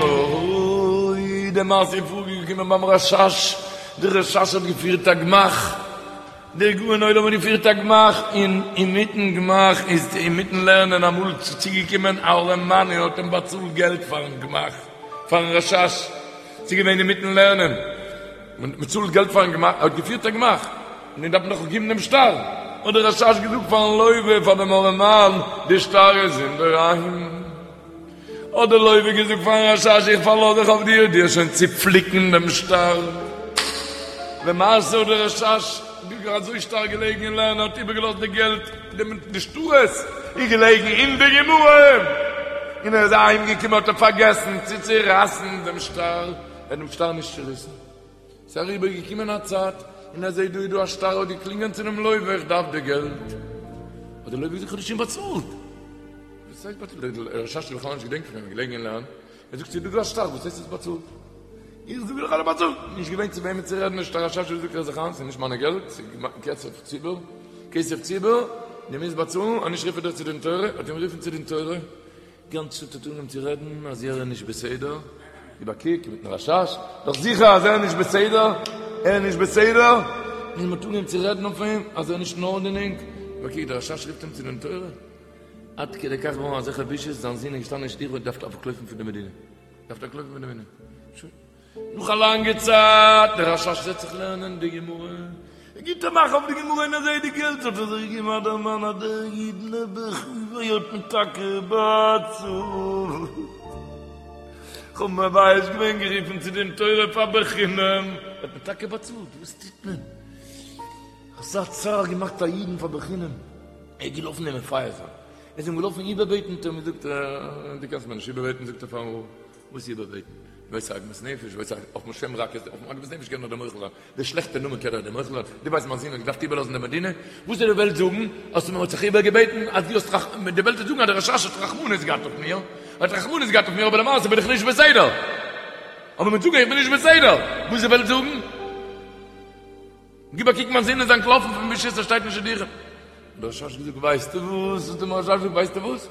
אוי, די מעשה איז פארגעקומען ביים רשש, דער רשש האט געפירט א גמח, דער גאון עולם האט געפירט א גמח, און אינמיטן גמח איז אינמיטן לערנען אמאל צוגעקומען א ארעמאן און האט אים באצאלט געלט פארן גמח, פארן רשש, ס'איז געווען אינמיטן לערנען, מען צאלט געלט פארן גמח, ער האט געפירט א גמח, און דארף מען דאך געבן דעם שטר, האט דער רשש געזאגט פארן לוה, פאר דעם ארעמאן, די שטר איז אינדערהיים. האט דער לוה געזאגט פארן רשש, איך פארלאז זיך אויף דיר, דו וועסט שוין צופליקן דעם שטר. למעשה האט דער רשש אזוי שטארק געלעגן אין לערנען, האט איבערגעלאזט די געלט, די שטרות איז געלעגן אין די גמרא, און ער איז אהיים געקומען האט ער פארגעסן צו צורייסן דעם שטר, ער האט דעם שטר נישט צוריסן. ס'איז אריבער געקומען א צייט, און ער זעט דא איז דא א שטר, האט געקלינגען צו דעם לוה, איך דארף די געלט. האט דער לוה געזאגט, איך האב דיר שוין באצאלט. וואס הייסט באצאלט? דער רשש האט בכלל נישט געדענקט פון דעם, געלעגן אין לערנען. ער זאגט, ס'איז דא דא א שטר, וואס הייסט האסט באצאלט? איך זאג דיר איך האב דיר באצאלט. נישט געווען צו וועמען צו רעדן, נישט דער רשש האט געזאגט, הער זיך איין, ס'איז נישט מיינע געלט, ס'איז כסף ציבור, כסף ציבור, דו מוזט באצאלן, אנישט רוף איך דיר צו דין תורה, האט אים גערופן צו דין תורה. גאנצע צייט האט אנגעהויבן צו רעדן אז ער איז נישט בסדר, גיב א קוק מיטן רשש, דאך זיכער אז ער איז נישט בסדר, ער איז נישט בסדר, און מ'האט אנגעהויבן צו רעדן אויף אים אז ער איז נישט אין ארדענונג, גיב א קוק דער רשש רופט אים צו דין תורה, עד כדי כך געווארן אזעלכע בושות, זיין זון איז געשטאנען אין שטיבל און דארף אנטלויפן פון די מדינה, דארף אנטלויפן פון די מדינה, שוין. נאך א לאנגע צייט, דער רשש זעצט זיך לערנען די גמרא, ער גיט א מאך אויף די גמרא און ער זעט די געלט, האט ער זיך געגעבן א דערמאן אז דער איד נעבעך ווי האט מיר טאקע באצאלט, כ'האב מבייש געווען גערופן צו דין תורה פאר בחינם, ער האט מיר טאקע באצאלט, וואס טוט מען? אזא צער געמאכט א אידן פאר בחינם, ער איז געלאפן אים מפייס זיין, ער איז אים געלאפן איבערבעטן, האט ער אים געזאגט, דו קענסט מיר נישט איבערבעטן, זאגט ער פארן רב. וואס איבערבעטן? ווייסט עגמת נפש, ווייסט אויפן שם רע קענסטו, אויפן עגמת נפש קען נאר דער מוחל זיין, די שלעכטע נאמען קען נאר דער מוחל זיין, דו ווייסט מיין זון האט געדארפט איבערלאזן די מדינה, וואס זאל די וועלט זאגן, אז מען האט זיך איבערגעבעטן, אז דו האסט רח, די וועלט וועט זאגן אז דער רשש האט רחמנות געהאט אויף מיר, האט רחמנות געהאט אויף מיר, אבער למעשה בין איך נישט בסדר, אבער מען וועט זאגן איך בין נישט בסדר, וואס די וועלט זאגן? גיב א קוק מיין זון איז אנטלאפן פון בושות ער שטייט אין שידוכים. האט דער רשש געזאגט ווייסטו וואס, האט דער רשש געזאגט ווייסטו וואס,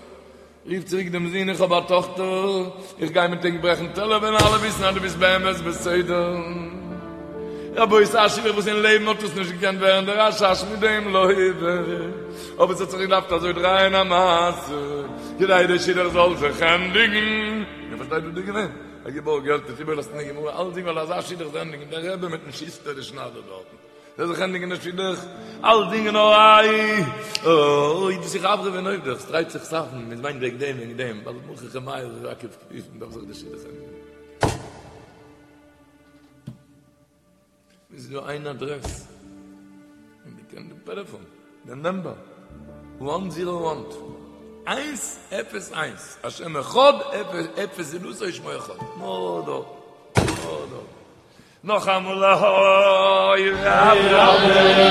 רוף צוריק דעם זון, איך האב א טאכטער, איך גיי מיט ענק ברעכן טעלער וועלן אלע וויסן אז דו ביסט באמת בסדר. רבותי, א שידוך וואס אין לעבן האט עס נישט געקענט ווערן דער רשש מיט דעם לוה, אבער עס האט זיך געדארפט אזוי דרייען א מעשה כדי דער שידוך זאל זיך ענדיגן. איר פארשטייט וואס דא איז געווען? ער האט געבארגט געלט, האט איבערגעלאזט אין די גמרא אלצדינג ווייל אזא שידוך זאל ענדיגן, דער רבי מיטן שוסטער די שניידער דארטן. זאל זיך ענדיגן דער שידוך, אלצדינג נאר איי, אוי, דאס איז חברה ווען אויב דאס דרייט זיך סאכן, מען מיינט וועגן דעם וועגן דעם, ווייל מוכרח מאיר איז עקב כביש, מען דארף זיך די שידוך ענדיגן. איז דא איין אדרעס, און די קען די טעלעפאן, די נאמבער, וואן זירא וואן, איינס אפס איינס, השם אחד אפס זולתו ושמו אחד, נאר דארט, נאר דארט. נאכאמאל אוי רבי.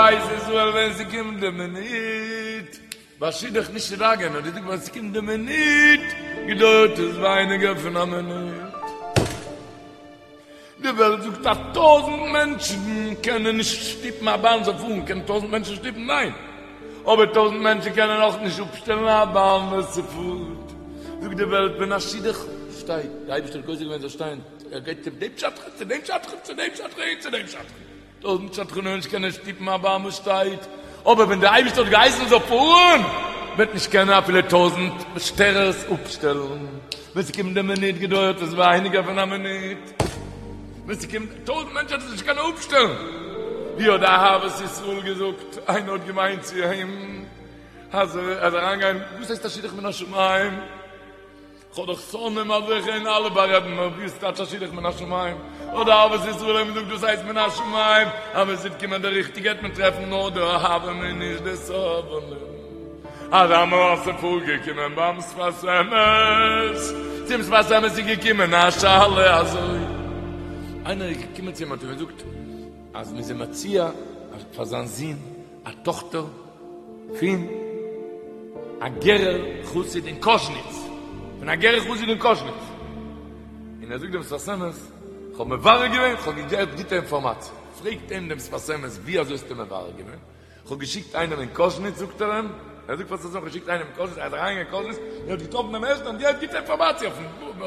בית ישראל ווען ס'קומט די מינוט, ביי שידוך נישט צו דאגה'ן, האט געזאגט ווען ס'קומט די מינוט געדויערט עס ווייניגער פון א מינוט. די וועלט זאגט אז טויזענט מענטשן קענען נישט שטופן א באן זאל פארן, קענען טויזענט מענטשן שטופן? ניין! אבער טויזענט מענטשן קענען אויך נישט אפשטעלן א באן וואס ס'פארט. זאגט די וועלט ווען א שידוך שטייט, די אייבערשטער האט גוזר געווען זאל שטיין, ער גייט צו דעם שדכן, צו דעם שדכן, צו דעם שדכן און צו דעם שדכן. טויזענט שדכנים נישט קענען שטופן א באן וואס שטייט, אבער ווען דער אייבערשטער האט געהייסן זאל פארן, וועט נישט קענען אפילו טויזענט שטערערס אפשטעלן, ווען ס'קומט די מינוט געדויערט עס ווייניגער פון א מינוט, ווען ס'קומט טויזענט מענטשן וועט עס נישט קענען אפשטעלן, ווי האט די אהבת ישראל געזאגט, איינער האט געמיינט צו אים אז ער זאל אריינגיין, וואס הייסט א שידוך מן השמים? כ'האב דאך שונאים אזעלכע און אלע בארעדן מיר ווי ס'טייטש א שידוך מן השמים? האט די אהבת ישראל אים געזאגט דאס הייסט מן השמים אז ווען ס'וועט קומען די ריכטיגע וועט מען טרעפן נאר די אוהבים און נישט די סובלים. אזא מעשה פארגעקומען ביים שפת אמת, צום שפת אמת איז געקומען א שאלה אזוי, איינער איז געקומען צו אים האט אים געזאגט אז מ'איז אים מציע פאר זיין זון א טאכטער פון א גערער חסיד אין קאזשניץ, פון א גערער חסיד אין קאזשניץ, און ער זאגט דעם שפת אמת, כ'האב מברר געווען, כ'האב געהאט גוטע אינפארמאציע, פרעגט אים דעם שפת אמת, ווי אזוי האסטו מברר געווען? כ'האב געשיקט איינעם אין קאזשניץ, זאגט ער אים, ער זאגט פאר'ן שפת אמת, כ'האב געשיקט איינעם אין קאזשניץ, ער איז אריינגעגאנגען אין קאזשניץ, און האט געטראפן דעם ערשטן, און געהאט גוטע אינפארמאציע אויפן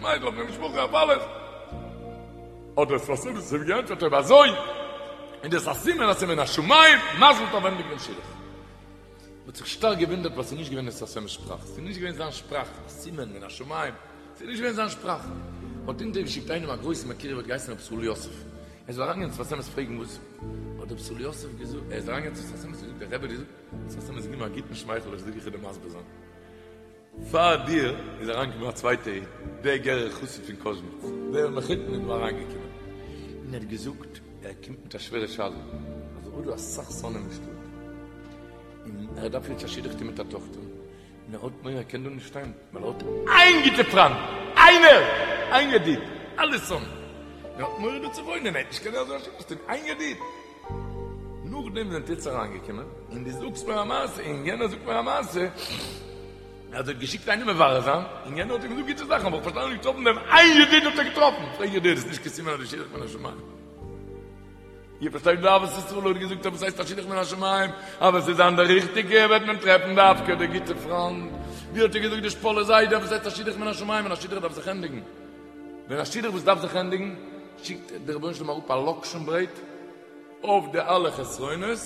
מיידל, אויף די משפחה, אויף אלעס. האט דער שפת אמת אים געענטפערט אויב אזוי איז דאס א סימן אז ס'איז מן השמים, מזל טוב ענדיג דעם שידוך. מ'האט זיך שטארק געוואונדערט ווייל ס'איז נישט געווען דעם שפת אמת'ס שפראך, ס'איז נישט געווען זיין שפראך, א סימן מן השמים, ס'איז נישט געווען זיין שפראך. מ'האט אונטערגעשיקט איינעם א גרויסן מקורב האט געהייסן רבי ישראל יוסף, ער זאל אריינגיין צום שפת אמת פרעגן וואס האט רבי ישראל יוסף געזאגט, ער איז אריינגעגאנגען צום שפת אמת און געזאגט דער רבי האט געזאגט, שפת אמת געגעבן א גוטן שמייכל איך זאג איך וועל דיר מסביר זיין. פאר דיר איז אריינגעקומען א צווייטע איד, דער גערער חסיד פון קאזשניץ, דער מחותן איז דא אריינגעקומען, און ער האט געזאגט, ער קומט מיט א שווערע שאלה, אז ער האט דא אסאך שונאים אין שטאט, און ער דארף יעצט א שידוך טון מיט א טאכטער, און ער האט מורא ער קען דא נישט שטיין, ווייל ער האט איין גוטע פריינד, איינער! איין ידיד, אלע שונאים, און ער האט מורא דא צו וואוינען, ער וועט נישט קענען אזוי א שידוך טון, איין ידיד! נאכדעם זענט עטץ אריינגעקומען, און דו זאגסט מיר א מעשה, און יענער זאגט מיר א מעשה, אז ער האט געשיקט איינעם מברר זיין, און יענער האט אים געזאגט גוטע זאכן, אבער איך פארשטיי נישט געטראפן דעם איין ידיד האט ער געטראפן, פרעג איך דיר, איז נישט קיין סימן אז די שידוך מן השמים? איר פארשטייט ווי אהבת ישראל האט געזאגט אז וואס הייסט א שידוך מן השמים, אז ווען ס'איז זיין די ריכטיגע וועט מען טרעפן דווקא די גוטע פריינד, ווי האט ער געזאגט די שפאלע זיידע וואס הייסט א שידוך מן השמים, ווען א שידוך דארף זיך ענדיגן, ווען א שידוך וואס דארף זיך ענדיגן, שיקט דער רבונו של עולם אראפ א לאקשן ברעט אויף די אלע חסרונות,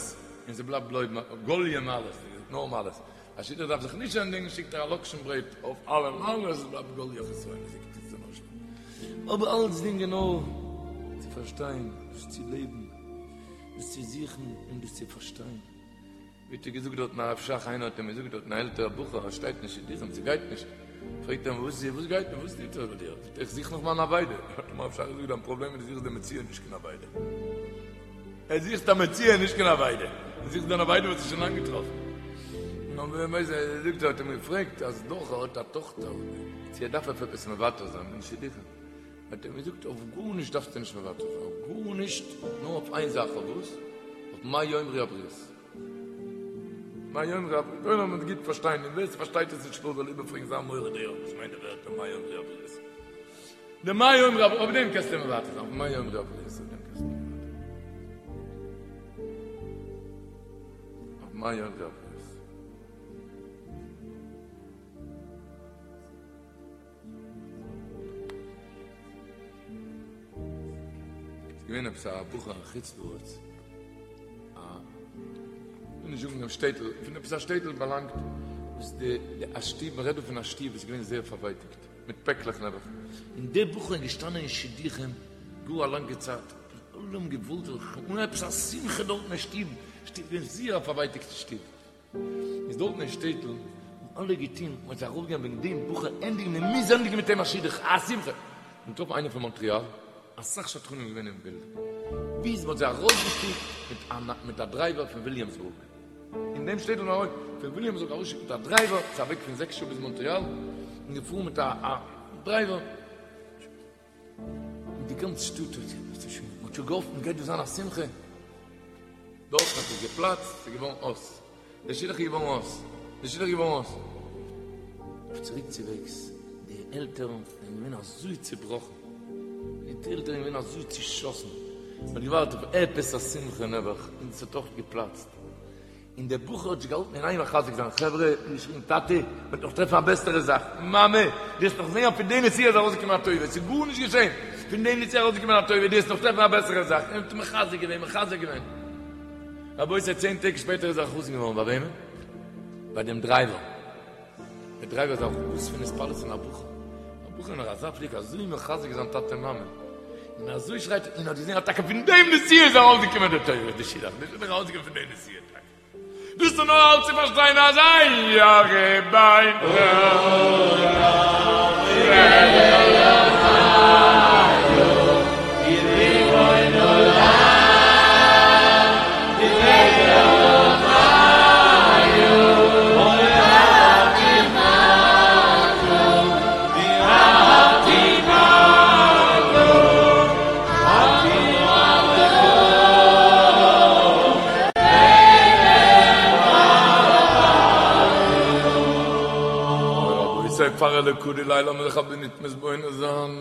און ס'בלייבט בלויז גאליע מעלות, נאר מעלות. א שידוך דארף זיך נישט ענדיגן, שיקט ער א לאקשן ברעט אויף אלע מעלות, עס בלייבט גאליע חסרונות, אבער אלצדינג איז נאר צו פארשטיין, דאס צו לעבן, דאס צו זוכן און דאס צו פארשטיין. ווי האט ער געזאגט דארטן הרב שך, איינער האט אים געזאגט דארטן א עלטערע בחור ער שטייט נישט שידוכים ס'גייט נישט, פרעגט ער אים וואס וואס גייט נישט וואס טוט זיך ביי דיר, זאגט ער איך זוך נאך מיין אבידה, האט אים הרב שך געזאגט דיין פראבלעם איז דו זוכסט די מציאה נישט קיין אבידה, ער זוכט א מציאה נישט קיין אבידה, דו זוכסט דיין אבידה וואס איז שוין לאנג געטראפן, נאר ווער ווייסט ער זאגט ער האט אים געפרעגט אז דאך ער האט א טאכטער צו ער דארף אויף עפעס מוותר זיין אין שידוכים, האט ער אים געזאגט אויף גארנישט דארפסטו נישט מוותר זיין, אויף גארנישט, נאר אויף איין זאך, אויף וואס? אויף מה יאמרו הבריות. מה יאמרו הבריות, דער עולם וועט גוט פארשטיין, און ווער ס'פארשטייט עס נישט זאל איבערפרעגן זיין מורה דעה וואס מיינט די ווערטער מה יאמרו הבריות. די מה יאמרו הבריות, אויף דעם קענסטו מוותר זיין, אויף מה יאמרו הבריות, אויף דעם קענסטו מוותר זיין. אויף מה יאמרו הבריות. ס'איז געווען עפעס א בחור אין חוץ לארץ, א, כ'וויל נישט זאגן דעם שטעטל, פון עפעס א שטעטל באלאנגט, וואס די, די א שטוב, מ'רעדט דא פון א שטוב וואס איז געווען זייער פארווייטיגט, מיט פעקלעך נעבעך, און דער בחור איז געשטאנען אין שידוכים גאר א לאנגע צייט, אלע האבן געוואלט זיך, אן עפעס א שמחה דארטן אין שטוב, שטוב געווען זייער א פארווייטיגטע שטוב. איז דארטן אין שטעטל האבן אלע געטון מ'האט זיך ארויפגעגאנגען וועגן דעם בחור ענדיגן מען מוז ענדיגן מיט אים א שידוך א שמחה און געטראפן איינער פון מאנטריאל אסאך שדכנים געווען אין בילד ביז מ'האט זיי ארויסגעשיקט מיט א מיט א דרייווער פון וויליאמסבורג אין דעם שטעטל נאר פון וויליאמסבורג ארויסגעשיקט מיט א דרייווער ס'איז א וועג פון זעקס שעה ביז מאנטריאל און געפארן מיט א א דרייווער און די גאנצע שטאט האט שוין מ'האט שוין געהאפט מ'גייט דא זיין א שמחה. דארטן האט עס געפלאצט, ס'איז געווארן אויס. דער שידוך איז געווארן אויס. דער שידוך איז געווארן אויס. אויף צוריק צו וועגס, די עלטערן זענען געווען אזוי צעבראכן. די עלטערן זענען געווען אזוי צעשאסן. מען האט געווארט אויף עפעס א שמחה נעבעך, און ס'האט אויך געפלאצט. און דער בחור האט זיך געהאלטן אין איין מחזק זיין, חברה, געשריגן, טאטע, מ'וועט נאך טרעפן א בעסערע זאך, מאמע, דו וועסט נאך זען אז פון די נסיעה איז ארויסגעקומען א טובה, ס'איז גארנישט געשען, פון די נסיעה איז ארויסגעקומען א טובה, דו וועסט נאך טרעפן א בעסערע זאך, און האט מחזק געווען, מחזק געווען. רבותי, צען טעג שפעטער איז ער א חתן געווארן, ביי וועמען? ביי דעם דרייווער. דער דרייווער איז א חתן פון התפעלות פון א בחור, א בחור נאך אזא פליג אזוי מחזק זיין טאטע מאמע, און אזוי שרייט און האט געזען אז טאקע פון דעם נסיעה איז ארויסגעקומען די טובה, די שידוך, די שידוך איז ארויסגעקומען פון די נסיעה טאקע. דאס איז נאר אלץ צו פארשטיין אז אין ירא בין פאר אלקא דלעילא לאמיר זיך א מינוט מתבונן זיין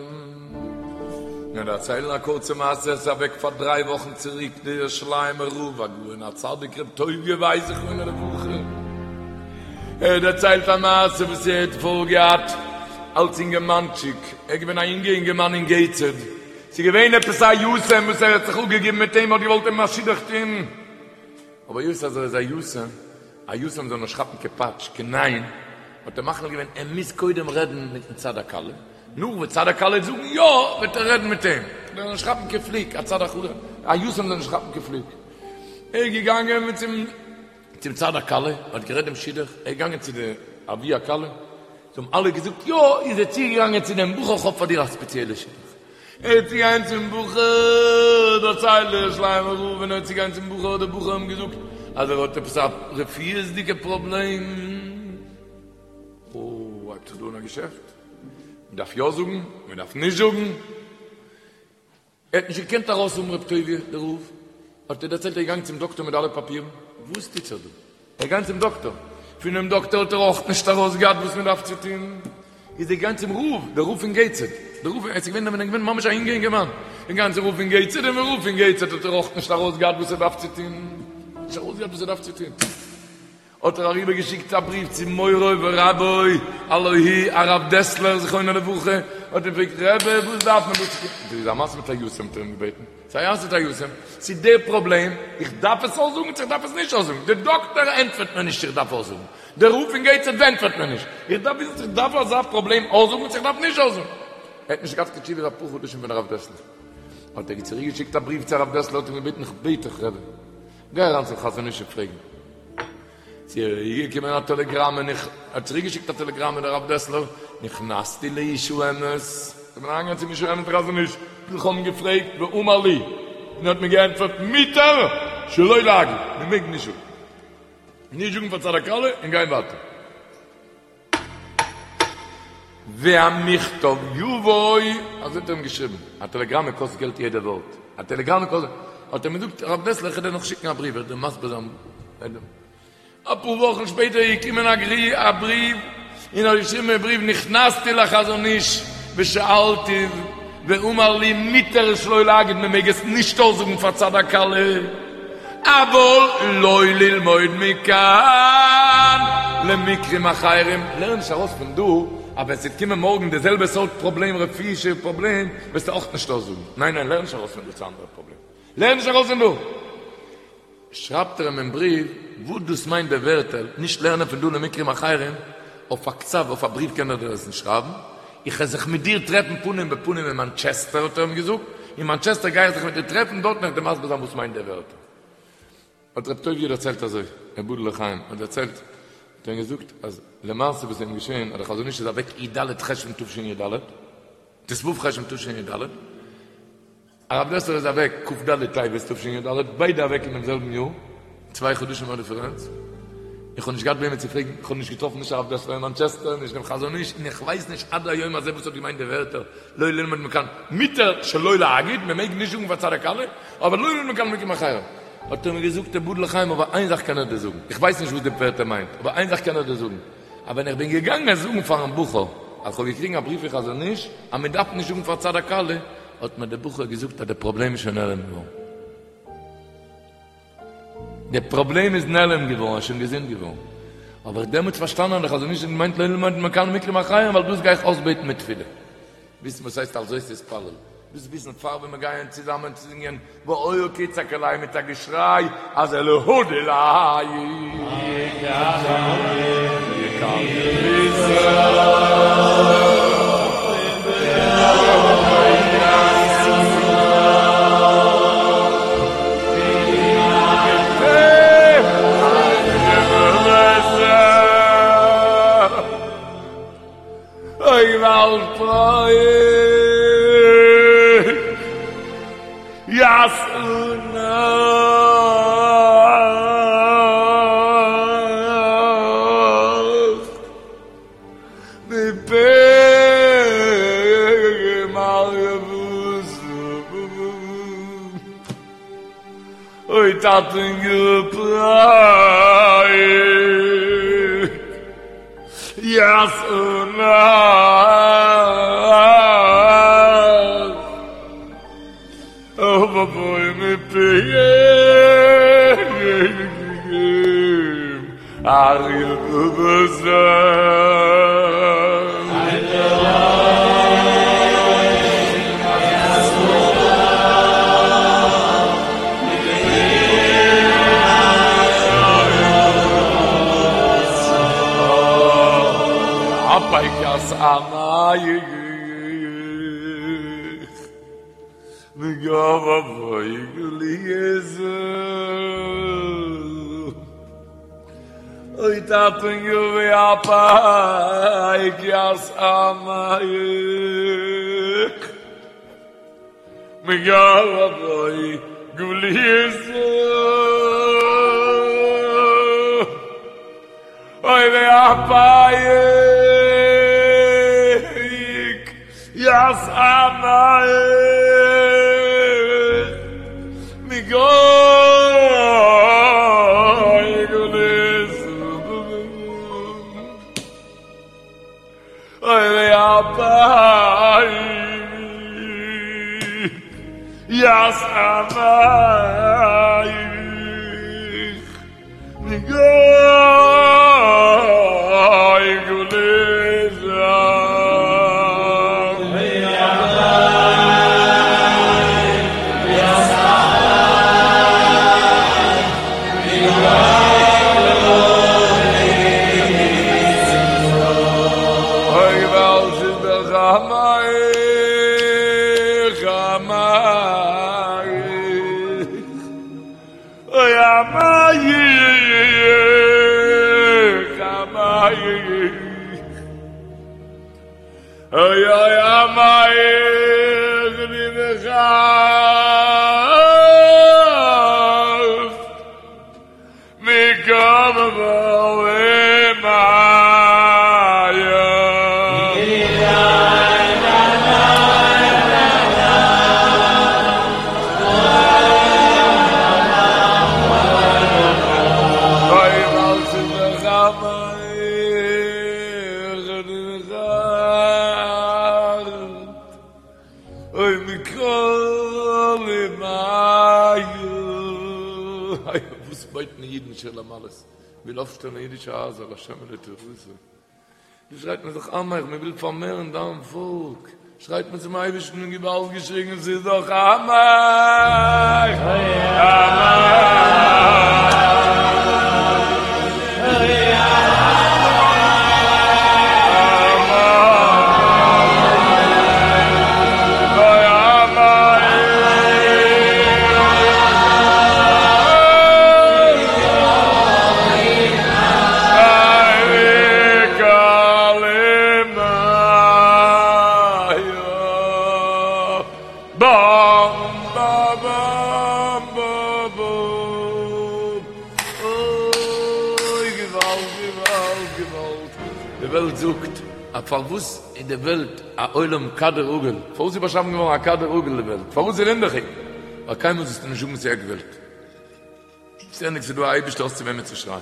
און דערציילן א קורצע מעשה, עס איז אוועק פאר דריי וואכן צוריק דער ירושלימער רב הגאון הצדיק ר' טוביה ווייס זכרונו לברכה, ער האט דערציילט א מעשה וואס ער האט פארגעהאט אלס אינגערמאנטשיק, ער איז געווען א אינגע אינגערמאן אין געיטסהעד, ס'איז געווען עפעס א יתום וואס ער האט זיך אפגעגעבן מיט אים, האט געוואלט אים א שידוך טון, אבער היות אז ער איז א יתום, א יתום זאל נישט כאפן קיין פאטש, קיין ניין, האט ער מחליט געווען ער מוז קודם רעדן מיטן צד הכלה, נאך וואס צד הכלה וועט זאגן יא, וועט ער רעדן מיט אים, ער זאל נישט כאפן קיין פליק, א צד הכלה, א יתום זאל נישט כאפן קיין פליק. ער איז געגאנגען מיט צום צום צד הכלה, האט גערעדט דעם שידוך, ער איז געגאנגען צו די אבי הכלה, זיי האבן אלע געזאגט יא, איז ער צוגעגאנגען צו דעם בחור, כ'האב פאר דיר א ספעציעלע שידוך. ער איז צוגעגאנגען צום בחור, דערציילט דער ירושלימער רב, ווען ער איז צוגעגאנגען צום בחור האט דער בחור אים געזאגט אז ער האט עפעס א רפואיות'דיגע פראבלעם. אוי, הייבט זיך דא אן א געשעפט, מען דארף יא זאגן, מען דארף נישט זאגן. ער האט נישט געקענט ארויס האבן רב טוביה דער רב, האט ער דערציילט ער איז געגאנגען צום דאקטאר מיט אלע פאפירן, וואס טוט זיך דא? ער איז געגאנגען צום דאקטאר, פונעם דאקטאר האט ער אויך נישט ארויס געהאט וואס מען דארף צו טון, איז ער געגאנגען צום רב, דער רב פון געיטסהעד, דער רב, ער איז געווען ווען ער איז געווען ממש א אינגע אינגערמאן, ער איז געגאנגען צום רב פון געיטסהעד, און דעם רב פון געיטסהעד האט ער אויך נישט ארויס געהאט וואס ער דארף צו טון, נישט ארויס געהאט וואס ער דארף צו טון. האט ער אריבער געשיקט א בריוו צו מורו ורבו הלא הוא הרב דעסלער זכרונו לברכה, האט אים געפרעגט רבי וואס דארף מען דא צו טון, דאס איז א מעשה מיט א יתום האט ער אים געבעטן, ס'איז א מעשה מיט א יתום, ס'איז דער פראבלעם, איך דארף עס אויסזאגן צו איך דארף עס נישט אויסזאגן, דער דאקטער ענטפערט מיר נישט איך דארף אויסזאגן, דער רב פון געיטסהעד ענטפערט מיר נישט, איך דארף וויסן צו איך דארף אזא פראבלעם אויסזאגן צו איך דארף נישט אויסזאגן. ער האט נישט געהאט קיין תשובה אפאר חדשים פון הרב דעסלער, האט ער צוריק געשיקט א בריוו צו הרב דעסלער האט אים געבעטן איך בעט דיך רבי, גיי אריין צום חזון איש און פרעג אים. ס'איז געקומען א טעלעגראם און איך האט צוריק געשיקט א טעלעגראם און הרב דעסלער נכנסתי לאיש האמת איך בין אריינגעגאנגען צום איש האמת חזון איש איך האב אים געפרעגט ואמר לי און ער האט מיר געענטפערט מותר שלא להגיד מען מעג נישט זאגן נישט זאגן פאר צד הכלה און גיין ווייטער. והמכתב יבוא, אזוי האט ער אים געשריבן, א טעלעגראמע קאסט געלט יעדע ווארט, א טעלעגראמע קאסט, האט ער אים געזאגט, הרב דעסלער איך וועל דיר נאך שיקן א בריוו, איך וועל דיר מסביר זיין, אפאר וואכן שפעטער איז געקומען א בריוו, און ער האט געשריבן אין בריוו, נכנסתי לחזון איש ושאלתיו ואמר לי מותר שלא להגיד, מען מעג עס נישט אויסזאגן פאר צד הכלה. אבל לא ללמוד מכאן למקרים אחרים, לערן נישט ארויס פון דא אז ווען ס'וועט קומען מארגן די זעלבע סארט פראבלעם רפואישע פראבלעם וועסטו אויך נישט אויסזאגן, ניין ניין לערן נישט ארויס פון דא צו אנדערע פראבלעם, לערן נישט ארויס פון דא. שרייבט ער אים אין בריוו וואס דאס מיינט די ווערטער נישט לערנען פון דא למקרים אחרים, אויף א כתב אויף א בריוו קען ער דיר עס נישט שרייבן, איך וועל זיך מיט דיר טרעפן פנים בפנים אין מאנטשעסטער האט ער אים געזאגט, אין מאנטשעסטער גיי איך זיך מיט דיר טרעפן, דארטן וועל איך דיר מסביר זיין וואס מיינט די ווערטער. האט רב טוביה דערציילט אזוי, יבדל לחיים האט דערציילט, האט ער אים געזאגט אז למעשה וואס איז אים געשען אז דער חזון איש איז אוועק י ד חשוון תשי ד, ט ו חשוון תשי ד, הרב דעסלער איז אוועק כ ד טבת תשי ד, ביידע אוועק אין דעם זעלבן יאר, צוויי חדשים א דיפערענץ, איך האב נישט געהאט וועמען צו פרעגן, איך האב נישט געטראפן נישט הרב דעסלער אין מאנטשעסטער, נישט דעם חזון איש, און איך ווייס נישט עד היום הזה וואס האט געמיינט די ווערטער לא ללמוד מכאן, מותר שלא להגיד, מען מעג נישט זאגן פאר צד הכלה, אבער לא ללמוד מכאן למקרים אחרים. האט ער מיר געזאגט תיבדל לחיים אבער איין זאך קען איך דיר זאגן, איך ווייס נישט וואס די ווערטער מיינט, אבער איין זאך קען איך דיר זאגן, אז ווען איך בין געגאנגען זאגן פארן בחור אז כ'האב געקריגן א בריוו פון חזון איש אז מען דארף נישט זאגן פאר צד הכלה, האט מיר דער בחור געזאגט אז די פראבלעם איז שוין נעלם געווארן. די פראבלעם איז נעלם געווארן, ער איז שוין געזונט געווארן. האב איך דעמאלטס פארשטאנען אז דער חזון איש האט געמיינט לא ללמוד מכאן מקרים אחרים ווייל דאס גיי איך אויסבעטן מיט תפילה. וויסן וואס הייסט על זאת תתפלל. דאס וויסן פאר ווען מיר גייען צוזאמען צו זינגען והיה כי יצעק אלי מיט א געשריי אז אלהא דיליה. אוי געוואלד פרעה יעשנה מפה מרבותא אוי טאטעניו פרעה יעשנה אבוי מפיהם אריה בבשר. אוי טאטעניו ואפייק יתאמך מגרבוי גוליסו אוי ואפייק יתאמך מגוי גוליסו אוי ואפייק יתאמך מגוי גוליסו אוי געוואלד ס'איז דאך עמך עמך אוי עמך עמך אוי אוי עמך די מחאפט מקום אוי מכל איי וואס בויט מען אידן שיר למעלות וויל אויפשטעלן אידישע הייזער להשם ולתורתו דא שרייט מען זיך עמך מען וויל פארמערן דיין פאלק שרייט מען צום אייבערשטן און געוואלד געשריגן ס'איז דאך עמך עמך. די וועלט זאגט אז פארוואס איז די וועלט א עולם כדור עגול? פארוואס איז באשאפן געווארן א כדור עגול די וועלט? פארוואס איז רינדעכיג? ווייל קיינמאל זאלסטו נישט זאגן ס'איז עק וועלט. שטענדיג ס'איז דא א אייבישטער האסט צו וועמען צו שרייען.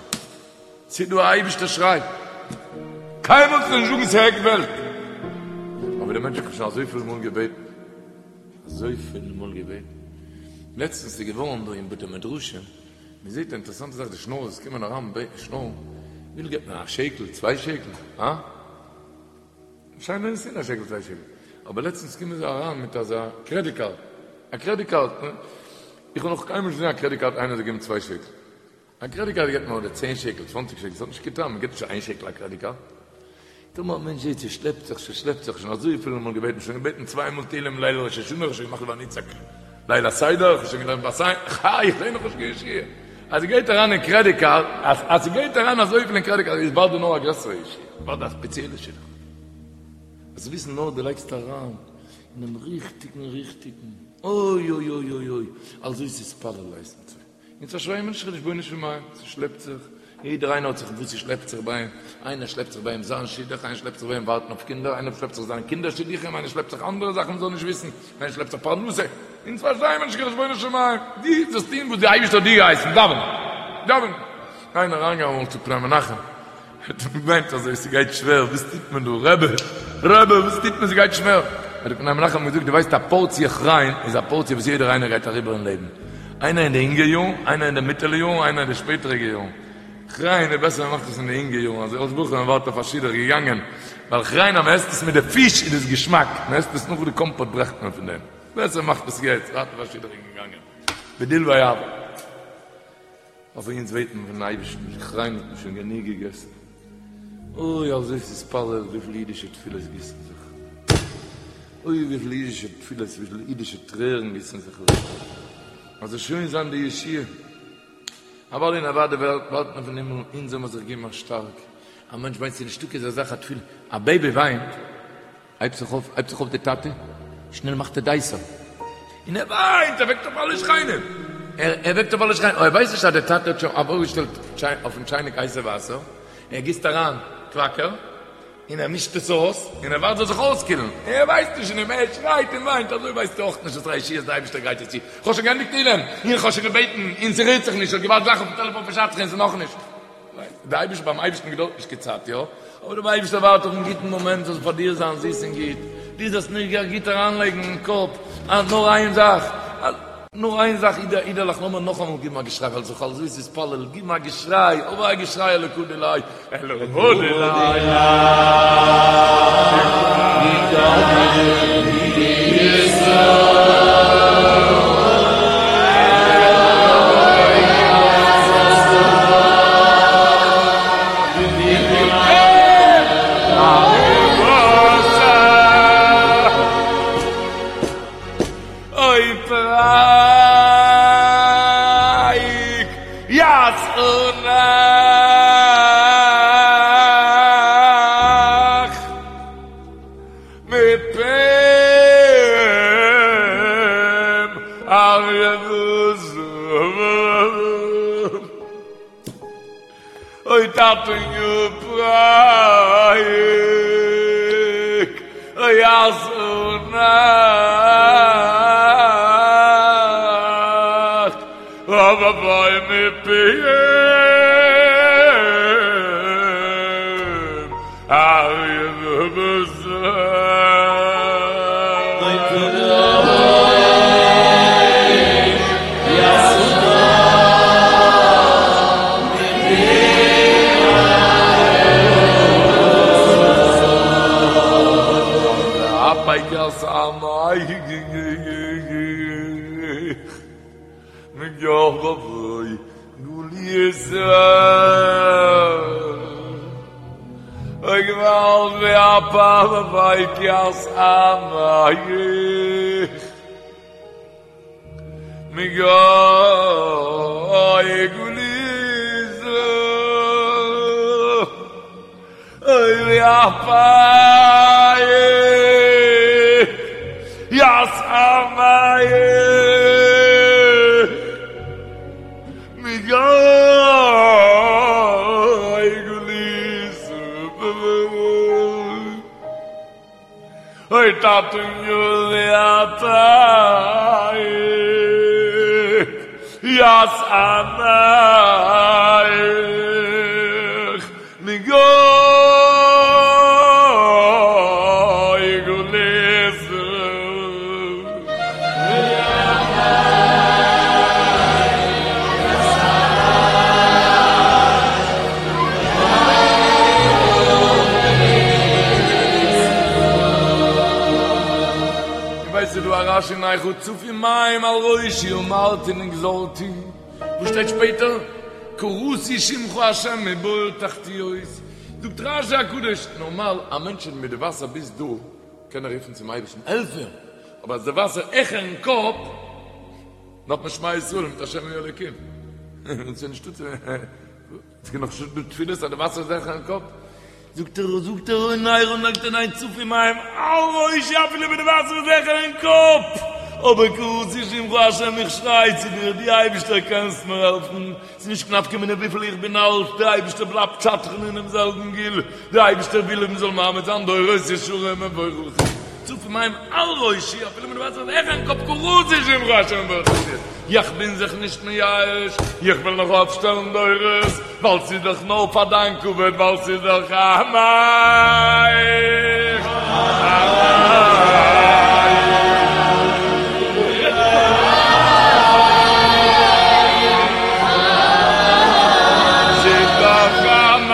ס'איז דא א אייבישטער שריי. קיינמאל זאלסטו נישט זאגן ס'איז עק וועלט. אבער דער מענטש האט שוין אזויפיל מאל געבעטן. אזויפיל מאל געבעטן. לעצטנס איז געווארן דא אין בתי מדרשים, מען זעט א אינטערעסאנטע זאך, די שנארערס קומען אריין בעטן שנארן, וויפיל געבט מען? א שקל? צוויי שקל? הא? שיין ווען עס איז א שקל צוויי שקל, אבער לעצטנס קומען זיי אריין מיט אזא קרעדיט קארד, א קרעדיט קארד, איך האב נאך קיינמאל נישט געזען א קרעדיט קארד איינער זאל געבן צוויי שקל, א קרעדיט קארד געבט מען אדער צען שקל, צוואנציג שקל, ס'האט נישט קיין טעם, מען געבט נישט איין שקל א קרעדיט קארד. טאמער א מענטש זעט ס'שלעפט זיך, ס'שלעפט זיך, שוין אזויפיל מאל געבעטן, שוין געבעטן צוויי מאל תהילים ליל ראש השנה, כ'האב שוין געמאכט ונצעק ליל הסדר, כ'האב שוין געלערנט בת עין, חי, איך זעה נאכנישט קיין ישועה. אז ס'גייט אריין אין קרעדיט קארד, אז אז ס'גייט אריין אזויפיל אין קרעדיט קארד, איז באלד דא נאר א גרעסערע ישועה, באלד א ספעציעלע שידוך. זאלסט וויסן נאר דו לייגסט אריין אינעם ריכטיגן ריכטיגן, אוי אוי אוי אוי אוי, על זאת תתפלל הייסט מצוה. אונז פארשטייען מיר נישט חשבונות פון מים, ס'שלעפט זיך, יעדער איינער האט זיך וואס ס'שלעפט זיך ביי אים, איינער שלעפט זיך ביי אים זיין שידוך, איינער שלעפט זיך ביי אים ווארטן אויף קינדער, איינער שלעפט זיך זיין קינדער שידוכים, איינער שלעפט זיך אנדערע זאכן מ'זאל נישט וויסן, איינער שלעפט זיך פרנסה, אונז פארשטייען מיר נישט קיין חשבונות של מים, דו זאלסט טון וואס די אייבערשטער האט דיר געהייסן, דאווענען, דאווענען. איינער אריינגעגאנגען אמאל צו פני מנחם, האט אים געוויינט אזוי, ס'גייט שווער, וואס טוט מען דא, רבי, רבי, וואס טוט מען, ס'גייט שווער. האט דער פני מנחם געזאגט, דו ווייסט א פארציע כריין איז א פארציע וואס יעדער איינער גייט אריבער אין לעבן, איינער אין די אינגע יארן, איינער אין די מיטעלע יארן, איינער אין די שפעטעריגע יארן. כריין איז בעסער מען מאכט עס אין די אינגע יארן, אזוי אלס בחור מען ווארט אויף א שידוך געגאנגען, ווייל כריין אז מען עסט עס מיט די פיש איז עס געשמאק, מען עסט עס נאך די קאמפאט ברעכט מען פון דעם, בעסער מאכט עס יעצט, ווארט אויף א שידוך געגאנגען, בדיל ויעבור. אבער אונז בעטן פון אייבערשטן, כריין האט מען שוין גענוג געגעסן, אוי על זאת תתפלל וויפיל אידישע תפילות גיסן זיך, אוי וויפיל אידישע תפילות וויפיל אידישע טרערן גיסן זיך אויס, אז זאל שוין זיין די ישועה, אוודאי און אוודאי ווארט מען פון הימל אונז זאל מען זיך געבן א שטארק, א מענטש וויינט ס'איז נישטא קיין אזא זאך א תפילה, א בעיבי וויינט. הייבט זיך אויף, הייבט זיך אויף די טאטע, שנעל מאכט ער דייסער, און ער וויינט, ער וועקט אויף אלע שכנים, ער וועקט אויף אלע שכנים, אבער ער ווייסט נישט אז דער טאטע האט שוין ארויפגעשטעלט אויפן טשייניק הייסע וואסער, ער גיסט אריין קוואקער, און ער מישט עס אויס, און ער ווארט זאל זיך אויסקילן, ער ווייסט נישט, און ער שרייט און וויינט, אזוי ווייסטו אויך נישט וואס א ישועה די אייבערשטער גרייט דיר צו, איך האב שוין געענדיגט תהילים, און איך האב שוין געבעטן, און ס'רירט זיך נישט, איך האב געווארט גלייך אויפן טעלעפאן פון שדכן, און ס'איז נאכנישט. די אייבערשטער ביים אייבערשטן געדויערט נישט קיין צייט יא, אבער דער אייבערשטער ווארט אויפן גוטן מאמענט זאל פאר דיר זיין זיס און גוט, דו זאלסט נאר גוט אריינלייגן אין קאפ אז נאר איין זאך, נאר איין זאך אידעלעך אידעלעך לאמיר נאכאמאל גיבן א געשריי ווייל זיך על זאת תתפלל גיבן א געשריי אבער א געשריי אלקא דיליה אלקא דיליה. אוי פרק ישאונך מפם אריה וזאב אוי טאטעניו פרק ישאונך אבוי מפיהם אריה וזאב. אוי געוואלד והפך יתעמך מגוי גלות אוי והפך יתעמך מגוי גלות אוי טאטעניו והפך. תרועת עמך מגוי גלית. איר ווייסט ס'איז דא א רש"י אין איכה צפו מים על ראשי אמרתי נגזלתי, וואס שטייט שפעטער? קראתי שמך ה' מבור תחתיות, זאגט רש"י הקדוש, נארמאל א מענטש איז מיט די וואסער ביז דא, קען ער רופן צום אייבערשטן העלף מיר, אבער אז די וואסער העכערן קאפ, דארף מען שמע ישראל מיט השם הוא האלוקים, און ס'איז נישטא צו. עס קען נאך נישט דא תפילות אז די וואסער איז העכערן קאפ, זאגט ער, זאגט ער אין איכה זאגט ער ניין צפו מים על ראשי אפילו ווען די וואסער איז העכערן קאפ, אבער קראתי שמך השם איך שריי צו דיר דו אייבערשטער קענסט מיר העלפן, ס'איז נישט קיין נפקא מינה וויפיל איך בין אלט, דער אייבערשטער בלייבט שדכן אינעם זעלבן גיל, דער אייבערשטער וויל מען זאל מעמיד זיין דורות ישרים מבורכים. צפו מים על ראשי, אפילו ווען די וואסער איז העכערן קאפ קראתי שמך השם מבור תחתיות, איך בין זיך נישט מייאש, איך וועל נאך אויפשטעלן דורות, ווייל ס'איז דאך נאר פאר דיין כבוד, ווייל ס'איז דאך עמך, ס'איז דאך עמך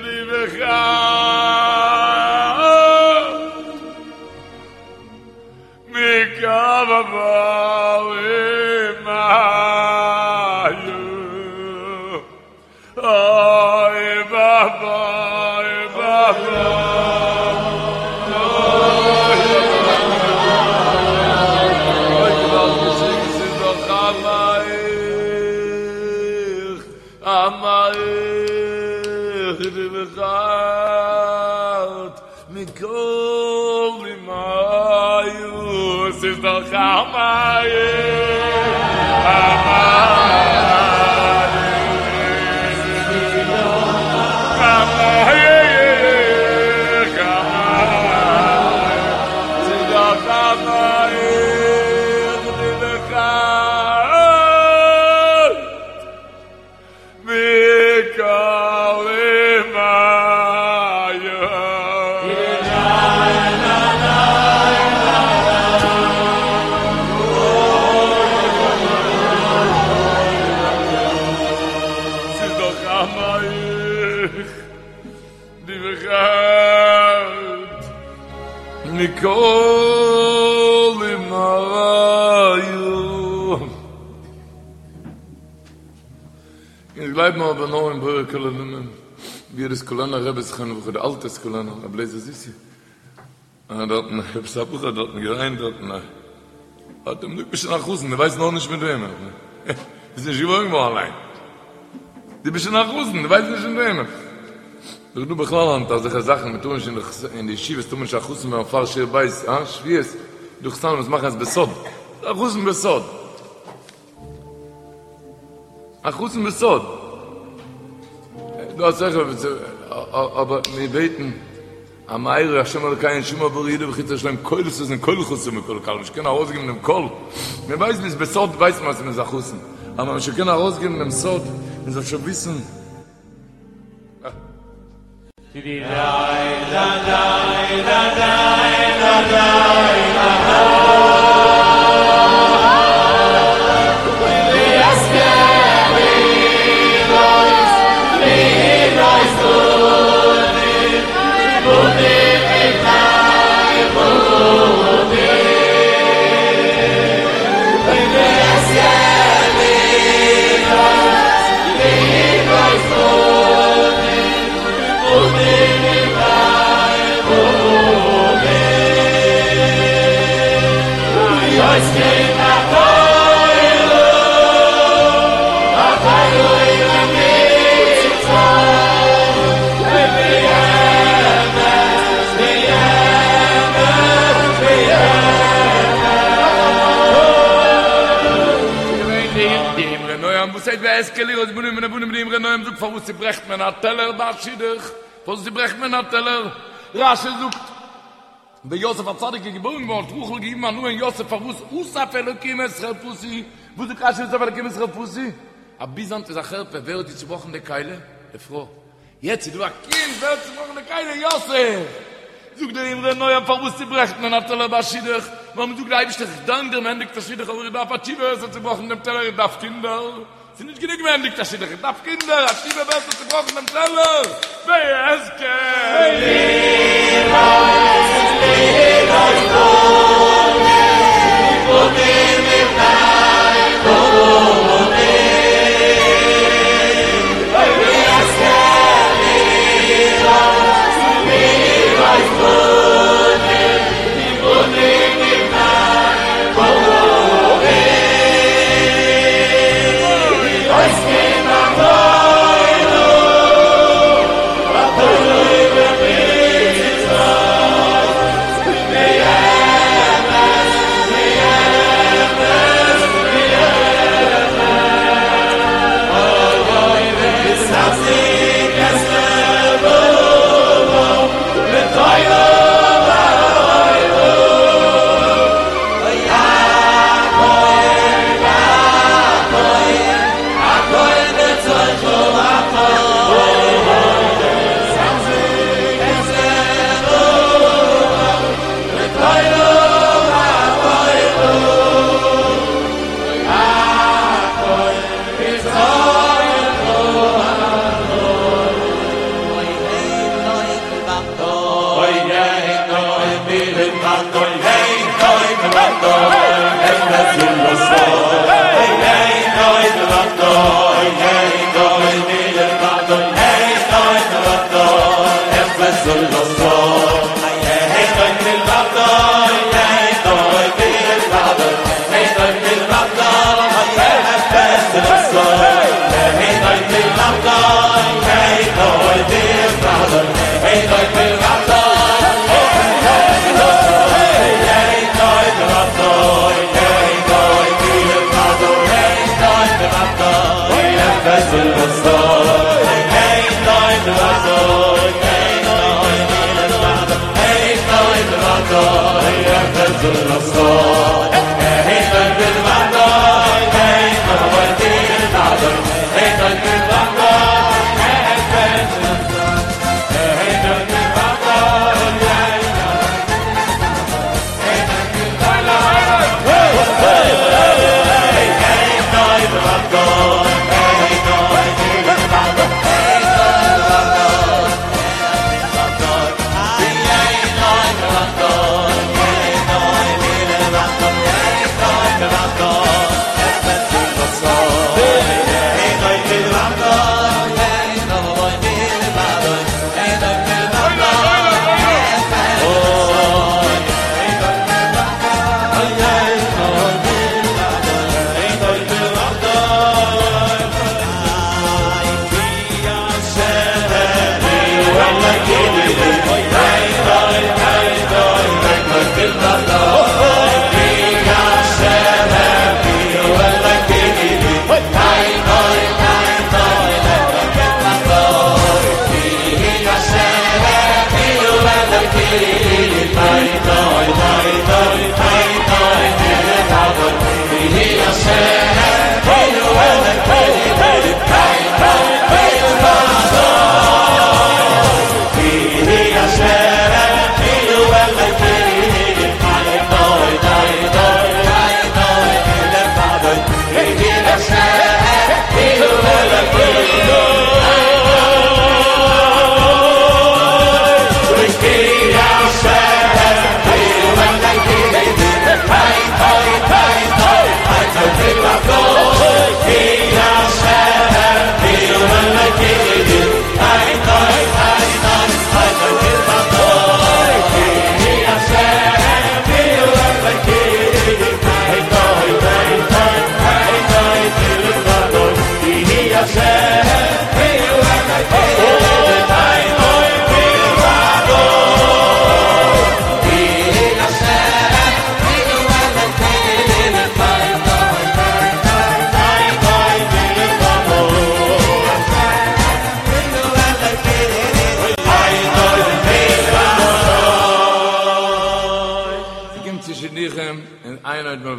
די בחרת מכל עמים אוי ואבוי ואבוי אוי געוואלד געשריגן ס'איז דאך עמך עמך די בחרת מכל אומיה ס'איז דאך עמך עמך ס'איז דאך עמך די בחרת מכל אומיה. ס'איז דאך עמך די בחרת מכל אומיה. אונז גלייבן אבער נאר אין בורא כל עולמים, ווי די סקולענער רבי זכרונו לברכה, די אלטע סקולענער, רבי לייזער זיסי, האט דארטן עפעס א בחור האט דארטן געוויינט דארטן, האט אים געזאגט ביסט שוין א חתן, דו ווייסט נאר נישט מיט וועמען, ביסט נישט געבוירן געווארן אליין, דו ביסט שוין א חתן, דו ווייסט נישט מיט וועמען. דאך דא בכלל היינט אזעלכע זאכן, מען טאר נישט אין די ישיבות טאר מען נישט א חתן ווערן פאר שיעור בית, אה, שבועות, דא חתנים וואס מאכן עס בסוד, א חתן בסוד. א חתן בסוד. דא אסאך אבער מיר בעטן המארה השם אלקינו שמור ברוך יהודה וחוץ ירושלים קול ששון קול חתן וקול כלה מ'זאל קענען ארויסגעבן דעם קול מען ווייסט מ'איז בסוד ווייסט מען אז מ'איז א חתן אבער מ'זאל קענען ארויסגעבן דעם סוד מען זאל שוין וויסן וואס הייסט ואזכה לראות בנים ובני בנים די אמרי נועם זאגט פארוואס צוברעכט מען א טעלער ביי א שידוך פארוואס צוברעכט מען א טעלער רשי זאגט. ווען יוסף הצדיק איז געבוירן געווארן האט רחל געגעבן א נאמען יוסף פארוואס אסף אלוקים את חרפתי, וואס זאגט רשי אסף אלוקים את חרפתי? אז ביז היינט איז א חרפה, ווער האט דיר צובראכן די כלי? די פרוי. יעצט איז דא א קינד, ווער האט צובראכן די כלי? יוסף! זאגט דער אמרי נועם פארוואס צוברעכט מען א טעלער ביי א שידוך? ווייל מען זאגט די אייבערשטער איך דאנק דיר מען ענדיגט א שידוך אבער איך דארף א תשובה ווער עס האט צובראכן דעם טעלער איך דארף קינדער, ס'איז נישט גענוג מען ענדיגט א שידוך איך דארף קינדער, א תשובה ווער עס האט צובראכן דעם טעלער ואזכה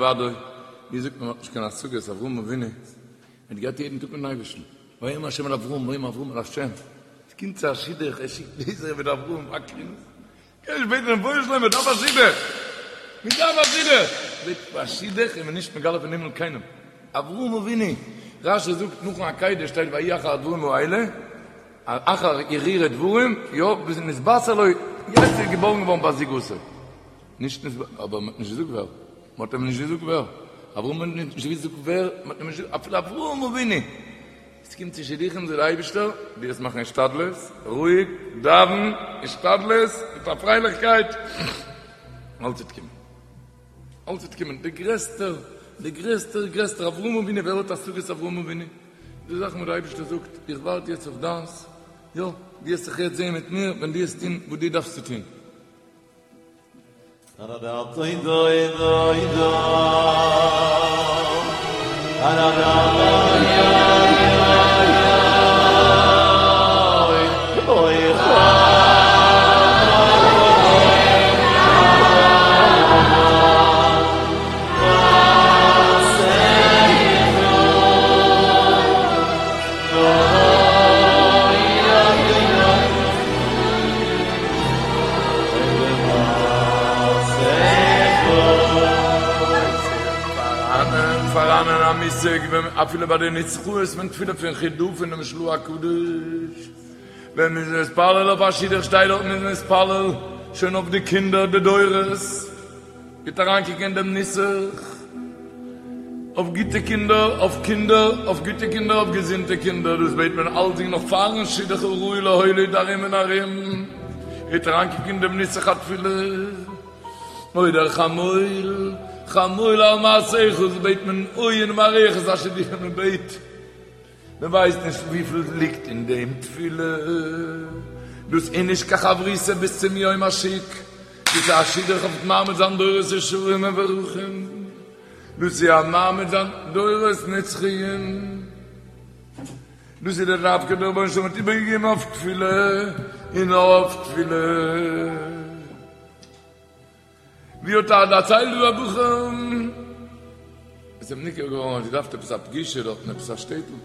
לבדו, ווי זאגט מען מ'האט נישט קיין השגות, אברהם אבינו האט געהאט יעדן טאג מיטן אייבערשטן, ויאמר השם אל אברהם ויאמר אברהם אל השם, עס קומט צו א שידוך ער שיקט לייזער מיט אברהם וקרינס, קען נישט בעטן רבונו של עולם מען דארף א שידוך, מען דארף א שידוך, בעט פאר א שידוך איז מען נישט מגלה פון הימל קיינעם, אברהם אבינו, רשי זאגט נאכן עקידה שטייט ויהי אחר הדברים האלה, אחר הרהורי דברים, יא, ביז נתבשר לו, יעצט איז געבארן געווארן בת זוגתו, נישט נתבשר, אבער מען האט נישט געזאגט ווער, מען האט אים נישט געזאגט ווער, אברהם האט נישט געזאגט ווער, מען האט אים נישט געזאגט, אפילו אברהם אבינו, עס קומט צו שידוכים זאגט דער אייבערשטער, דו וועסט מאכן השתדלות, רואיג, דאווען, השתדלות, מיט א פרייליכקייט, אלץ וועט קומען, אלץ וועט קומען, דער גרעסטער, דער גרעסטער, גרעסטער אברהם אבינו, ווער האט השגות אברהם אבינו? די זאכן וואס דער אייבערשטער זאגט, איך ווארט יעצט אויף דיינס, יא, דו וועסט זיך יעצט זען מיט מיר ווען דו וועסט טון וואס דו דארפסט צו טון. פאראנען א מושג ווען אפילו ביי די נוסחאות פון תפילה פון חיד"א פונעם של"ה הקדוש ווען מ'איז מתפלל אויף א שידוך שטייט דארט מ'איז מתפלל שוין אויף די קינדער די דורות. גוט אריינקוקן אין דעם נוסח, אויף גוטע קינדער, אויף קינדער, אויף גוטע קינדער, אויף געזונטע קינדער, דאס בעט מען אלצדינג נאך פארן שידוך הראוי להוליד ארום און ארום, גוט אריינקוקן אין דעם נוסח התפילה, אוי דער חמול, חמול על מעשיך, דאס בעט מען אוי אין מערכת השידוכים, מען בעט. מען ווייסט נישט וויפיל ליגט אין דעם תפילה, דאס איז נישט קיין חברותא ביז צום יום השיק, דאס איז א שידוך אויף מעמיד זיין דורות ישרים מבורכים, דאס איז א מעמיד זיין דורות נצחיים, דאס איז דער דווקא דער רבונו של עולם האט איבערגעגעבן אויף תפילה און אויף תפילה. ווי האט ער דערציילט דא א בחור איז אים ניכר געווארן אז ער דארף עפעס א פגישה דארט אין עפעס א שטעטל,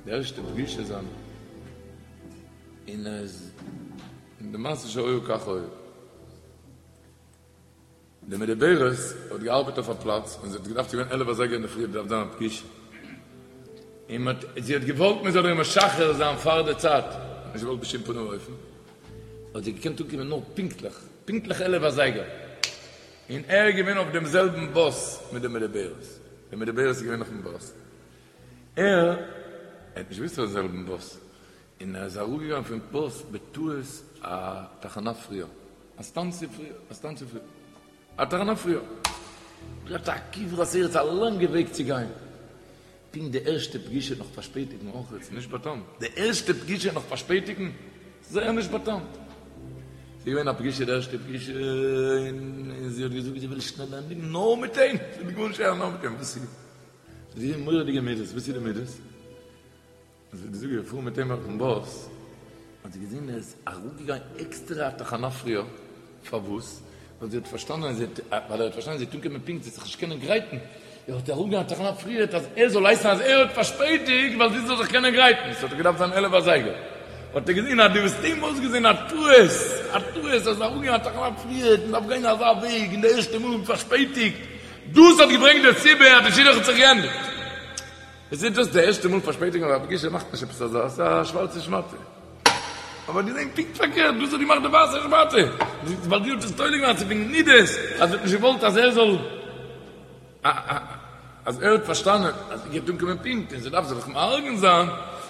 די ערשטע פגישה זיינע, און ער איז און די מעשה שהיה כך היה, די מדוברת האט געארבעט אויף א פלאץ און זי האט געדארפט ס'איז געווען עלף אזייגער אינדערפרי האט געדארפט זיין א פגישה, און מען האט זי האט געוואלט מען זאל איר משחרר זיין פאר די צייט, האט נישט געוואלט בשום פנים ואופן. האט זי געקענט אנקומען נאר פונקטליך, פונקטליך עלף אזייגער, און ער איז געווען אויף דעם זעלבן באס מיט די מדוברת, די מדוברת איז געווען אויפן באס, ער האט נישט געוואוסט אויפן זעלבן באס, און ער איז אראפגעגאנגען פון באס בטעות א תחנה פריער, א סטאנציע פריער, א סטאנציע פריער, א תחנה פריער, געהאט א כברת ארץ א לאנגע וועג צו גיין. פונקט די ערשטע פגישה נאך פארשפעטיגן אויך איז נישט באטאמט. די ערשטע פגישה נאך פארשפעטיגן? זייער נישט באטאמט. ס'איז געווען א פגישה די ערשטע פגישה און זי האט געזאגט זי וויל שנעל ענדיגן נאר מיט אים, זי וויל גארנישט הערן נאר מיט אים. וואס איז? זי האט געזען מורא'דיגע מידות, וואס איז די מידות? זי האט געזאגט געפארן מיט אים אויפן באס, האט זי געזען ער איז אראפגעגאנגען עקסטערע א תחנה פריער, פארוואס? ווייל זי האט פארשטאנען אז ווייל ער האט פארשטאנען זי וועט אנקומען פונקט זי וועט זיך נישט קענען גרייטן, ער האט אראפגעגאנגען א תחנה פריער אז ער זאל הייסן אז ער האט פארשפעטיגט ווייל זי זאל זיך קענען גרייטן, ס'האט דאך געדארפט זיין עלף אזייגער, האט ער געזען אז דו האסט אים אויסגעזען א טעות, א טעות אז אראפגיין א תחנה פריער, מען דארף גיין אזא וועג און די ערשטע מאל פארשפעטיגט, דאס האט געברענגט די סיבה אז די שידוך האט זיך געענדיגט. עס איז דאס די ערשטע מאל פארשפעטיגן אויף א פגישה מאכט נישט עפעס אזא, ס'איז א שווארצע שמאטע. אבער געזען פונקט פארקערט, דאס האט געמאכט די ווייסע שמאטע, ווייל זי האט עס תולה געווען אז ס'איז וועגן מידות, אז זי האט נישט געוואלט אז ער זאל, אז ער האט פארשטאנען אז זי גייט אנקומען פונקט און זי דארף זיך מארגן זיין,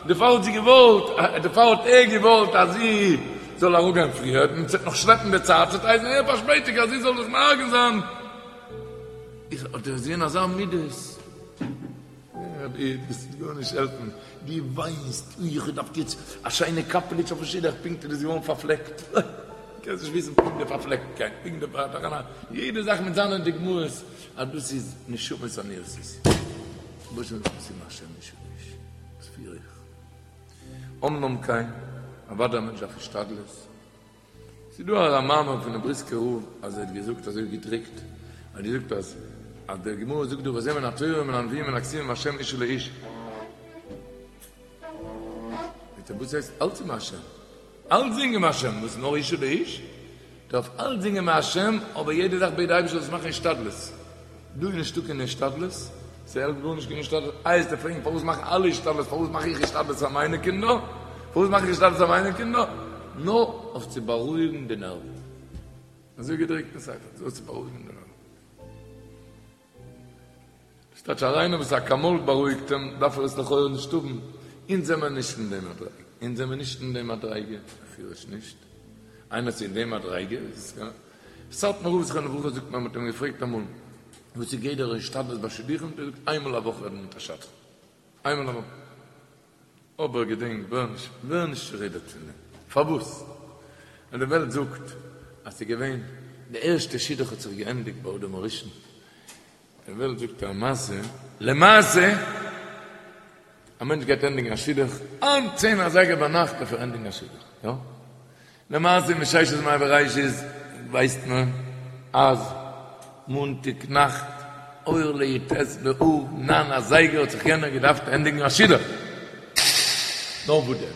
דערפאר האט זי געוואלט, דערפאר האט ער געוואלט אז זי זאל אראפגיין פריער, און ס'וועט נאך שלעפן די צייט, ס'וועט הייסן ער פארשפעטיגט אז זי זאל זיך מארגן זיין. איז האט ער געזען אזא מידות. רבי דאס וועט גארנישט העלפן, דו וויינסט, אוי איך האב געדארפט יעצט א שיינע קאפעליטש אויפן שידוך, פונקט איז דאס געווארן פארפלעקט, אוי, קענסט נישט וויסן פונקט די פארפלעקטקייט, פונקט די פארטאכענע, יעדע זאך מיט זיינע דוגמאות, אז דאס איז נשמות אני עשיתי, וואס איז השם איש איש, וואס פיר איך? אמנם כן, אוודאי א מענטש דארף השתדלות, ס'איז דא א מאמר פונעם בריסקער רב אז ער האט געזאגט אזוי געדרוקט, ער האט געזאגט אז. אז די גמרא זאגט דא וזה מן התורה ומן הנביאים ומן הכתובים מהשם אשה לאיש. זאגט ער וואס הייסט אלץ איז מהשם? אלצדינג איז מהשם, וואס נאר אשה לאיש? דארף אלצדינג איז מהשם, אבער יעדע זאך בעט די אייבערשטער זאלסט מאכן השתדלות. דא איז נישטא קיין השתדלות, ס'העלפט גארנישט קיין השתדלות, איי וועסטו פרעגן פארוואס מאכן אלע השתדלות, פארוואס מאך איך השתדלות פאר מיינע קינדער? פארוואס מאך איך השתדלות פאר מיינע קינדער? נאר אויף צו בארואיגן די נערוון. אזוי געדרוקט אין ספר, אויף צו בארואיגן די נערוון. ס'טייטש אז איינער וואס אקאמאל בארואיגט אים דארף ער עס לכאורה נישט האבן, אונז זעמער נישט אין די מדריגה, אונז זעמער נישט אין די מדריגה, בפירוש נישט, איינער איז אין די מדריגה איז עס סאטמאר רב זכרונו לברכה זאגט מען האט אים געפרעגט אמאל וואס איז גדר השתדלות ביי שידוכים האט ער געזאגט איינמאל א וואך רעדן מיט א שדכן, איינמאל א וואך. אבער געדענק, ווער נישט, ווער נישט צורודערט פון דעם. פארוואס? ווייל די וועלט זאגט אז ס'איז געווען, די ערשטע שידוך האט זיך געענדיגט ביי אדם הראשון. די וועלט זאגט א מעשה, למעשה, א מענטש גייט ענדיגן א שידוך, היינט צען אזייגער ביינאכט דארף ער ענדיגן א שידוך, יא? למעשה מששת ימי בראשית ווייסט מען אז מאנטאג נאכט אור לי"ט באב ניין אזייגער האט זיך יענער געדארפט ענדיגן א שידוך. נאר וואס דען?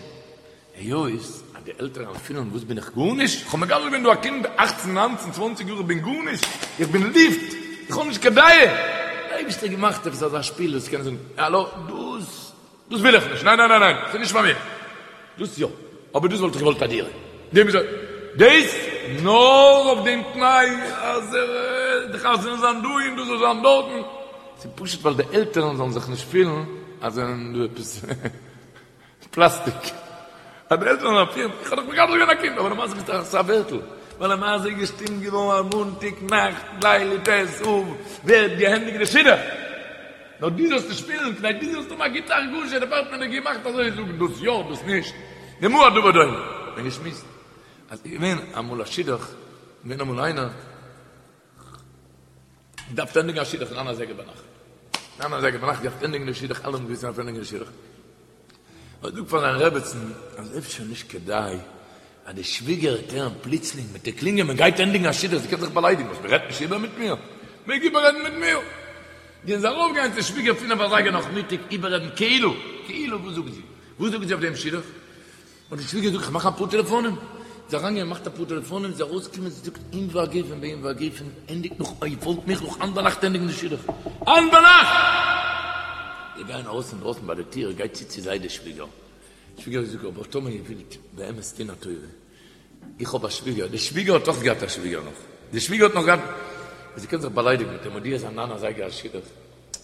היות אז די עלטערן פילן וואס בין איך גארנישט? איך האב מגדל געווען דא א קינד אכצן ניינצן צוואנציג יאר איך בין גארנישט? איך בין לופט? איך האב נישט קיין דעה? דער אייבערשטער האט געמאכט עפעס אזא שפיל וואס קען זאגן האלא דאס דאס וויל איך נישט, ניין ניין ניין ניין, ס'איז נישט פאר מיר. דאס יא, אבער דאס וואלט איך געוואלט א דירה. דעם איז דאס נאר אויף דעם תנאי אז די חתונה זאל זיין דא און דאס זאל זיין דארטן. ס'איז פשוט ווייל די עלטערן זאלן זיך נישט פילן אז זיי זענען דא עפעס פלאסטיק. אז די עלטערן זאלן פילן, איך האב דאך מגדל געווען א קינד, אבער למעשה ביסטו א ווערטל. ווייל למעשה איז געשטימט געווארן אז מאנטאג נאכט ליל י"ט אב ווערט געענדיגט די שידוך. נאר דו זאלסט נישט פילן, כדי דו זאלסט האבן א גוטע הרגשה, דערפאר האט מען דיר געמאכט אזוי, זאגן דאס יא, דאס נישט, למה הדבר דומה? מ'האט געשמועסט אז ס'איז געווען אמאל א שידוך, געווען אמאל איינער, געדארפט ענדיגן א שידוך ניין אזייגער ביינאכט, ניין אזייגער ביינאכט געדארפט ענדיגן די שידוך, אלע האבן געוואוסט אז מ'דארף ענדיגן די שידוך, האט געזאגט פאר זיין רעבעצן אז אפשר נישט כדאי אז די שוויגער וועט הערן פלוצלינג מיט די קלינגען מען גייט ענדיגן א שידוך זי קען זיך באליידיגן וואס מען רעדט נישט איבער מיט מיר מעג איבעררעדן מיט מיר גייען זיי ארויפגיין צו שוויגער פינף אזייגער נאכמיטאג איבעררעדן כאילו כאילו וואס זאגט זי וואס זאגט זי אויף דעם שידוך האט די שוויגער געזאגט איך מאך אפאר טעלעפאנען זי איז אריינגעגאנגען געמאכט אפאר טעלעפאנען זי איז ארויסגעקומען זי זאגט אם והגפן באם והגפן ענדיגט נאך איר פאלגט מיך נאך היינט ביינאכט ענדיגן די שידוך היינט ביינאכט! זיי גייען ארויס אינדרויסן ביי די טיר גייט צו צו זיי די שוויגער שוויגער זאגט אבער טאמער איר ווילט באמת טון א טובה איך האב א שוויגער די שוויגער האט אויך געהאט א שוויגער נאך די שוויגער האט נאך געהאט זי קען זיך באליידיגן מיט אים מודיע זיין ניין אזייגער א שידוך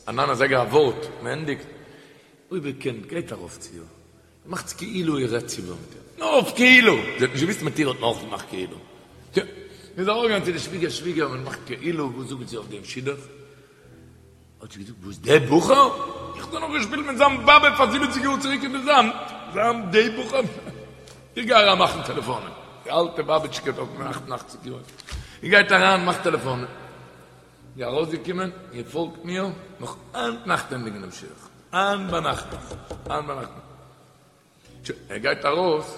א ניין אזייגער א ווארט מען ענדיגט אויב איר קענט גייט ארויף צו איר מאכטס כאילו איר רעדט איבער מיט איר. נאר אויף כאילו! זי האט נישט געוואוסט מיט איר האט מען אויך געמאכט כאילו. יא. מ'איז ארויפגעגאנגען צו די שוויגער, שוויגער, מען מאכט כאילו, וואס זאגט זי אויף דעם שידוך? האט זי געזאגט, וואס דער בחור? איך האב דאך נאך געשפילט מיט זיין באבע פאר זיבעציג יאר צוריק אין די זאמד. זיין דער בחור? איך גיי אריין מאכן טעלעפאנען. די אלטע באבעטשקע דארט מיט אכט און אכציג יאר. זי גייט אריין מאכט טעלעפאנען. זי ארויסגעקומען, איר פאלגט מיר, נאך היינט נאכט ענדיגן דעם שידוך. היינט ביינאכט נאך, היינט ביינאכט נאך. שוין, ער גייט ארויס,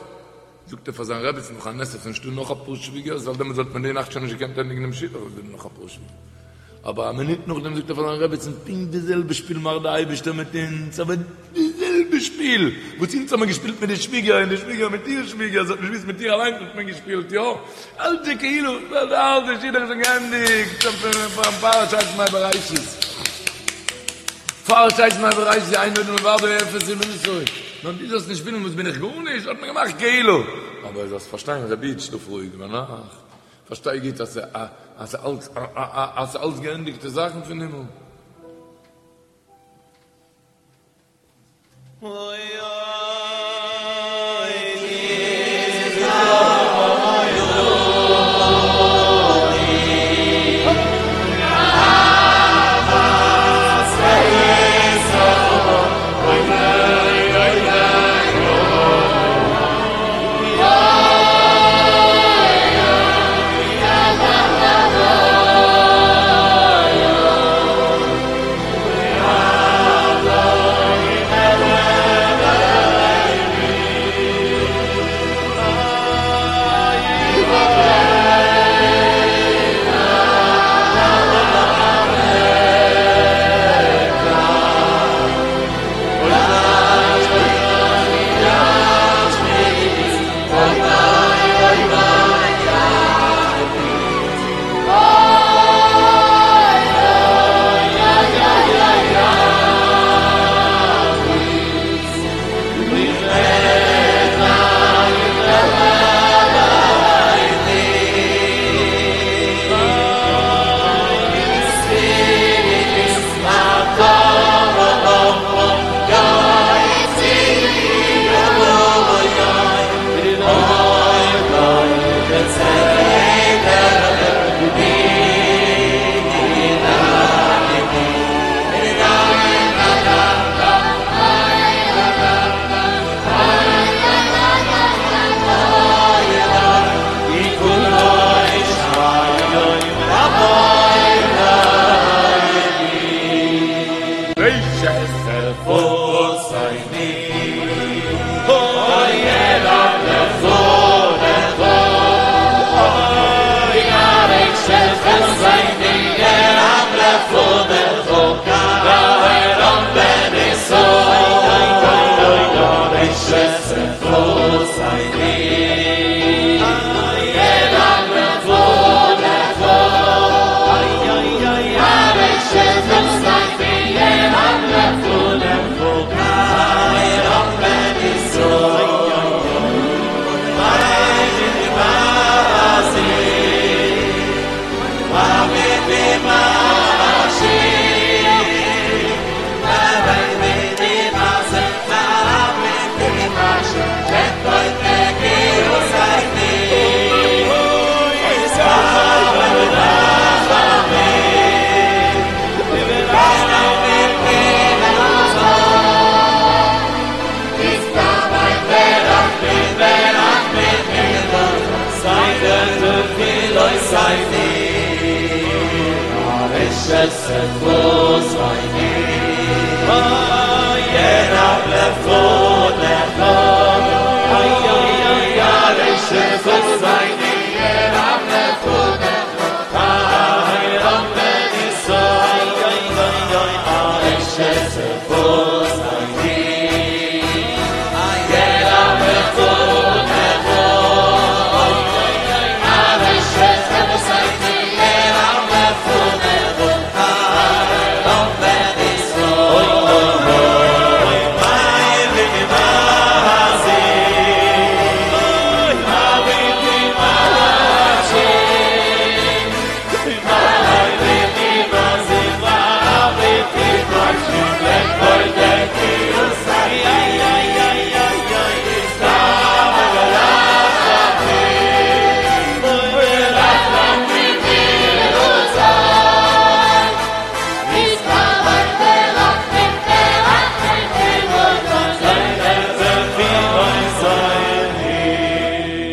זאגט ער פאר זיין רעבעצן נאך א נס אז ס'איז נישטא נאך אפאר שוויגערס, ווייל דעמאלטס וואלט מען די נאכט שוין נישט געקענט ענדיגן דעם שידוך, אויב איז דא נאך אפאר שוויגערס. אבער א מינוט נאכדעם זאגט ער פאר זיין רעבעצן, פונקט די זעלבע שפיל מאכט די אייבערשטער מיט אונז, אבער די זעלבע שפיל וואס אונז האבן געשפילט מיט די שוויגער און די שוויגער מיט איר שוויגער, זי האט נישט געוואוסט מיט איר אליינס האט מען געשפילט, יא, אלץ איז כאילו, ווייל די אלטע שידוך איז שוין געענדיגט, שוין פאר ששת ימי בראשית, פאר ששת ימי בראשית אין עוד מלבדו אפס אמונתו, נאר דו זאלסט נישט פילן וואס בין איך גארנישט, האט מען געמאכט כאילו, אבער זאלסט פארשטיין רבי איד שלאף רואיג ביינאכט, פארשטיי גוט אז ס'איז אלץ געענדיגטע זאכן פון הימל.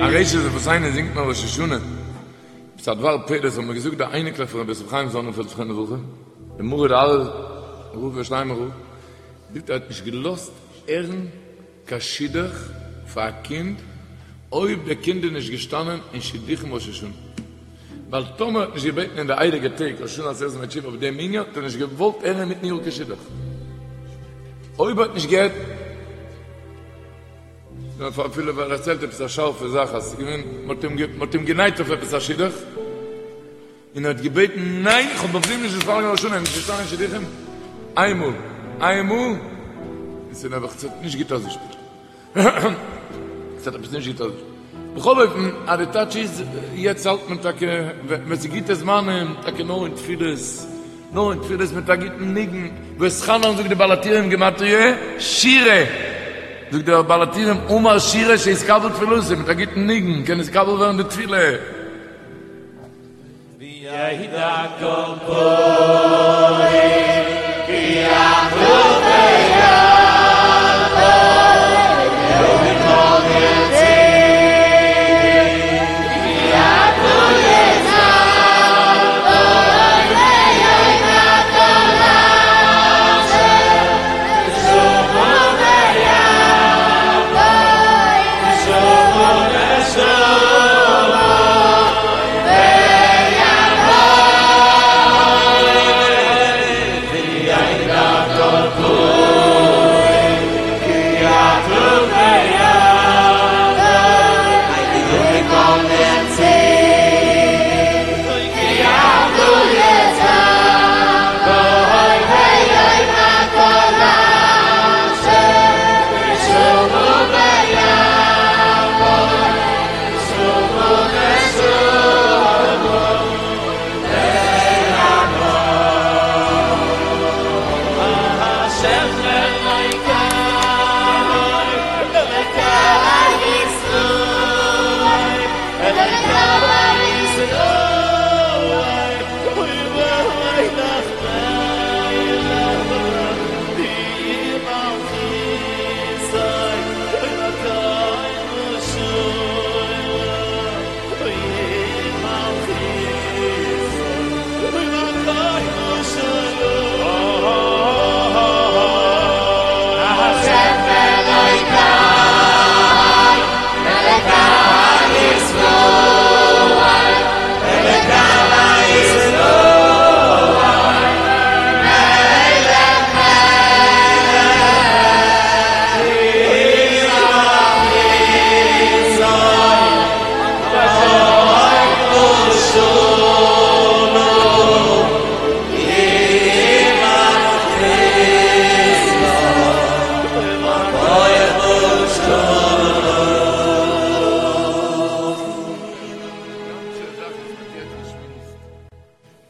ארשת שפתינו זינגט מען ראש השנה. עפעס א דבר פלא, עס האבן מיר געזאגט די אייניקלעך פון רבי יוסף חיים זאנענפעלד זכרונו לברכה, דער מרא דארעא רב ירושלימער רב, זאגט ער האט נישט געלאזט הערן קיין שידוך פאר א קינד אויב דער קינד איז נישט געשטאנען אין שידוכים ראש השנה, ווייל טאמער האט נישט געבעטן אין די הייליגע טעג ראש השנה עשרת ימי תשובה אויף דעם ענין האט ער נישט געוואלט הערן אינמיטן יאר קיין שידוך אויב האט נישט געהערט. נאר אפילו ער דערציילט עפעס א שארפע זאך אז ס'איז געווען מ'האט אים גענייט אויף עפעס א שידוך און ער האט געבעטן ניין איך האב אויף דעם נישט מתפלל געווען ראש השנה נישט געשטאנען אין שידוכים איינמאל איינמאל און ס'איז נעבעך ס'האט נישט גוט אויסגעשפילט ס'האט עפעס נישט גוט אויסגעשפילט בכל אופן אז די טייטש איז יעצט האלט מען טאקע ווען ס'איז גוטע זמנים טאקע נאר אין תפילות נאר אין תפילות מיט א גוטן ניגון, ואתחנן זאגט די בעל הטורים גימטריא שירה, זאגט דער בעל הטורים אמר שירה שיתקבל תפילתו, מיט א גוטן ניגון קען נתקבל ווערן די תפילה. וידע כל פועל כי אחדות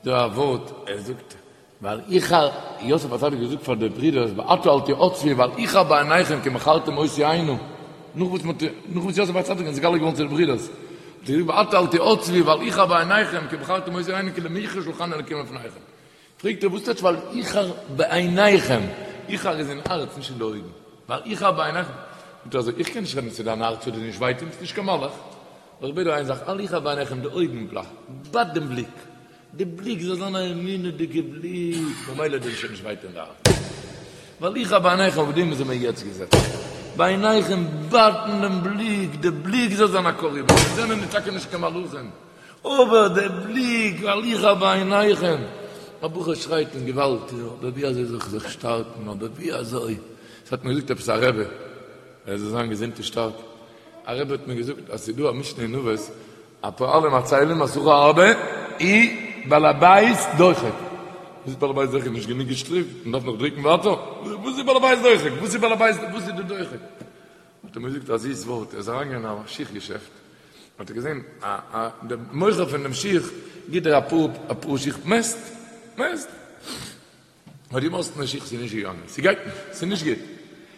דא א ווארט, ער זאגט, ואל יחר, יוסף הצדיק האט געזאגט פאר די ברידערס, ועתה אל תעצבו ואל יחר בעיניכם כי מכרתם אותי הנה, נאך וואס מ'האט, נאך וואס יוסף הצדיק איז נתגלה געווארן צו די ברידערס, האט ער געזאגט ועתה אל תעצבו ואל יחר בעיניכם כי מכרתם אותי הנה כי למכרה שלחני אלקים לפניכם. פרעגט ער וואס טייטש ואל יחר בעיניכם, יחר איז אין הארץ נישט אין די אויגן, ואל יחר בעיניכם, זאגט ער אזוי, איך קען נישט רעדן צו דיין הארץ ס'וועט דיר נישט וויי טון, ביסט נישט קיין מלאך, אבער איך בעט דיר איין זאך, אל יחר בעיניכם, די אויגן, בייט דעם בליק. די בליק זאל זיין א אמונה'דיגע בליק, ממילא דיר שוין נישט וויי טון די הארץ. ואל יחר בעיניכם אויף דעם זעמיר יעצט געזעצן. בעיניכם בייטן דעם בליק, די בליק זאל זיין א קה ריבון, מיר זענען טאקע נישט קיין מלאכים, אבער די בליק ואל יחר בעיניכם, א בחור שרייט און געוואלד, אבער ווי אזוי זאל איך זיך שטארקן, אבער ווי אזוי, עס האט מיר געזאגט עפעס א רבי, ער זאל זיין געזונט און שטארק, א רבי האט מיר געזאגט אז ס'איז דא א משנה אין אבות, הפועלים עצלים השכר הרבה ובעל הבית דוחק. וואס איז בעל הבית דוחק? נישט גענוג געשטריקט? מען דארף נאך דריקן ווייטער? וואס איז בעל הבית דוחק? וואס איז בעל הבית וואס איז די דוחק? האט ער מיר געזאגט א זיס ווארט, ער איז אריינגעגאנגען אין א שיך געשעפט, האט ער געזען א א דער מוכר פון דעם שיך גיט דיר אפאר אפאר שיך מעסט מעסט. האט געמאסטן די שיך ס'איז נישט געגאנגען, ס'גייט נישט, ס'איז נישט גוט,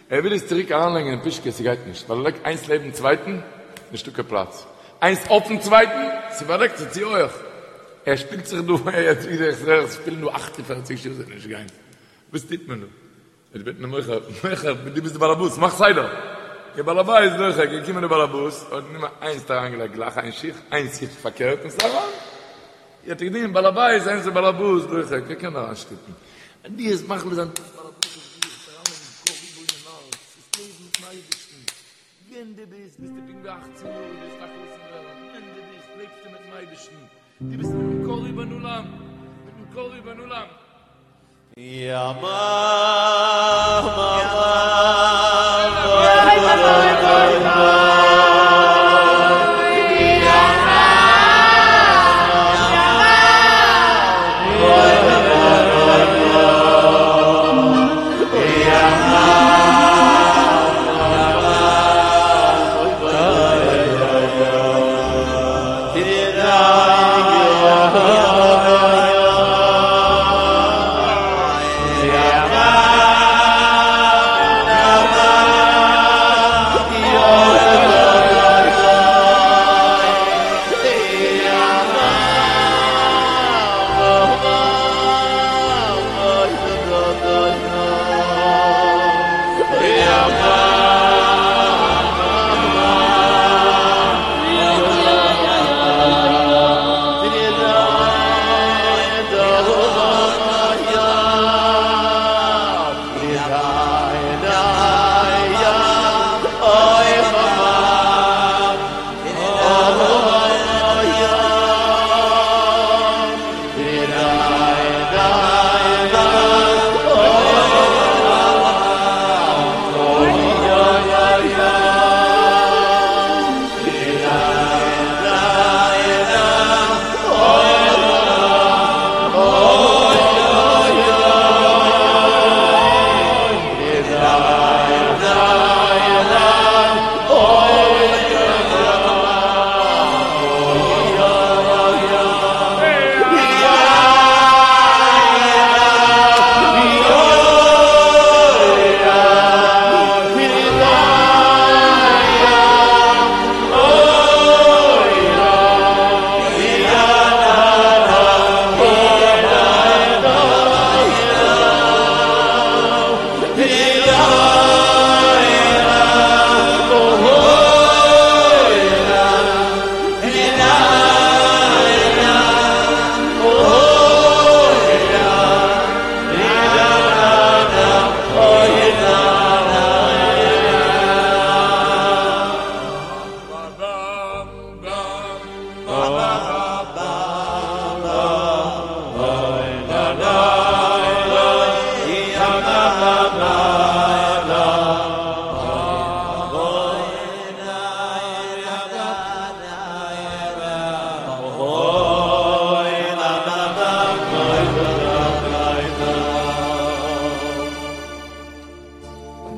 ער וויל עס צוריק אריינלייגן אין פושקע, ס'גייט נישט, ווייל ער לייגט איינס לעבן צווייטן, נישטא קיין פלאץ, איינס אויפן צווייטן, ס'באדעקט זיך צו הויעך, ער שפילט זיך דא, ער שפילן דא 48 שעה ס'וועט נישט גיין, וואס טוט מען דא? ער בעט דעם מוכר, מוכר, דו ביסט די באלעבאס, מאך סדר! דער בעל הבית דוחק, געקומען דער באלעבאס, האט גענומען איינס האט אריינגעלייגט גלייך איין שיך, איינס שיך פארקערט און ס'איז אריין. האט ער געדינגען בעל הבית, איינס איז באלעבאס דוחק, ער קען אריינשטופן. דו וועסט מחליט זיין דו ביסט באלעבאס אויף דיך, וועסט אריינלייגן קה ריבון הארץ, וועסט לעבן מיטן אייבערשטן. ווען דו ביסט, ביסטו פונקט ווי אכצן יאר, דו וועסט א חתן ווערן. ווען דו ביסט, לעבסטו מיטן אייבערשטן. דו ביסט מיטן קה ריבון עולם, מיטן קה ריבון עולם.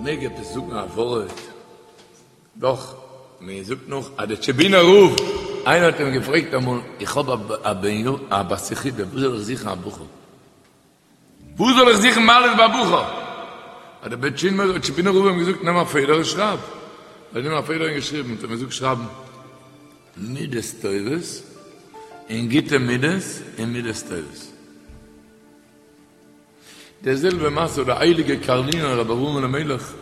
מעג עפעס זאגן א ווארט? דאך, מען זאגט נאך אז דער טשעבינער רב, איינער האט אים געפרעגט אמאל, איך האב א בן א בת יחידה, וואו זאל איך זוכן א בחור? וואו זאל איך זוכן מעלות ביי א בחור? האט דער טשעבינער רב אים געזאגט, נעם א פעדער און שרייב. ער האט גענומען א פעדער און געשריבן, האט ער אים געזאגט שרייבן מידות טובות און גוטע מידות און מידות טובות. די זעלבע מעשה האט דער הייליגער קארלינער רבי אברהם אלימלך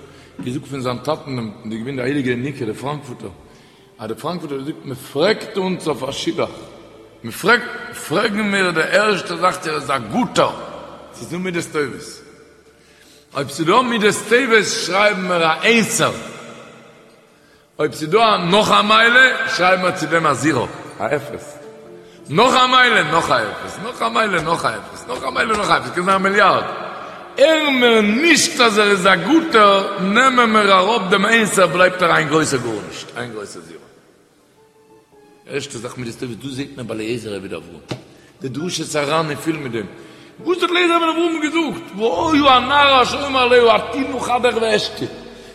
געזאגט פון זיין טאטן דעם דער געווען דער הייליגער ינוקא דער פראנקפורטער, אז דער פראנקפורטער האט געזאגט מען פרעגט אונז אויף א שידוך. מ'פרעגט, פרעגן מיר די ערשטע זאך צו ער איז א גוטער, ס'איז דא מידות טובות. אויב ס'איז דא מידות טובות שרייבן מיר א איינסער. אויב ס'איז דא נאך א מעלה שרייבן מיר צו דעם א זירא, א אפס. נאך א מעלה, נאך א אפס, נאך א מעלה, נאך א אפס, נאך א מעלה, נאך א אפס, קען זיין א מיליארד. הערן מיר נישט אז ער איז א גוטער, נעמען מיר אראפ דעם איינסער בלייבט ער איין גרויסער גארנישט, איין גרויסער זירא. ערשטע זאך מידות טובות, דאס זעט מען ביי אליעזר עבד אברהם, די דרשת הר"ן איז פול מיט דעם, וואס האט אליעזר עבד אברהם געזאגט, והיה הנערה אשר אומר אליה הטי נא כדך ואשתה,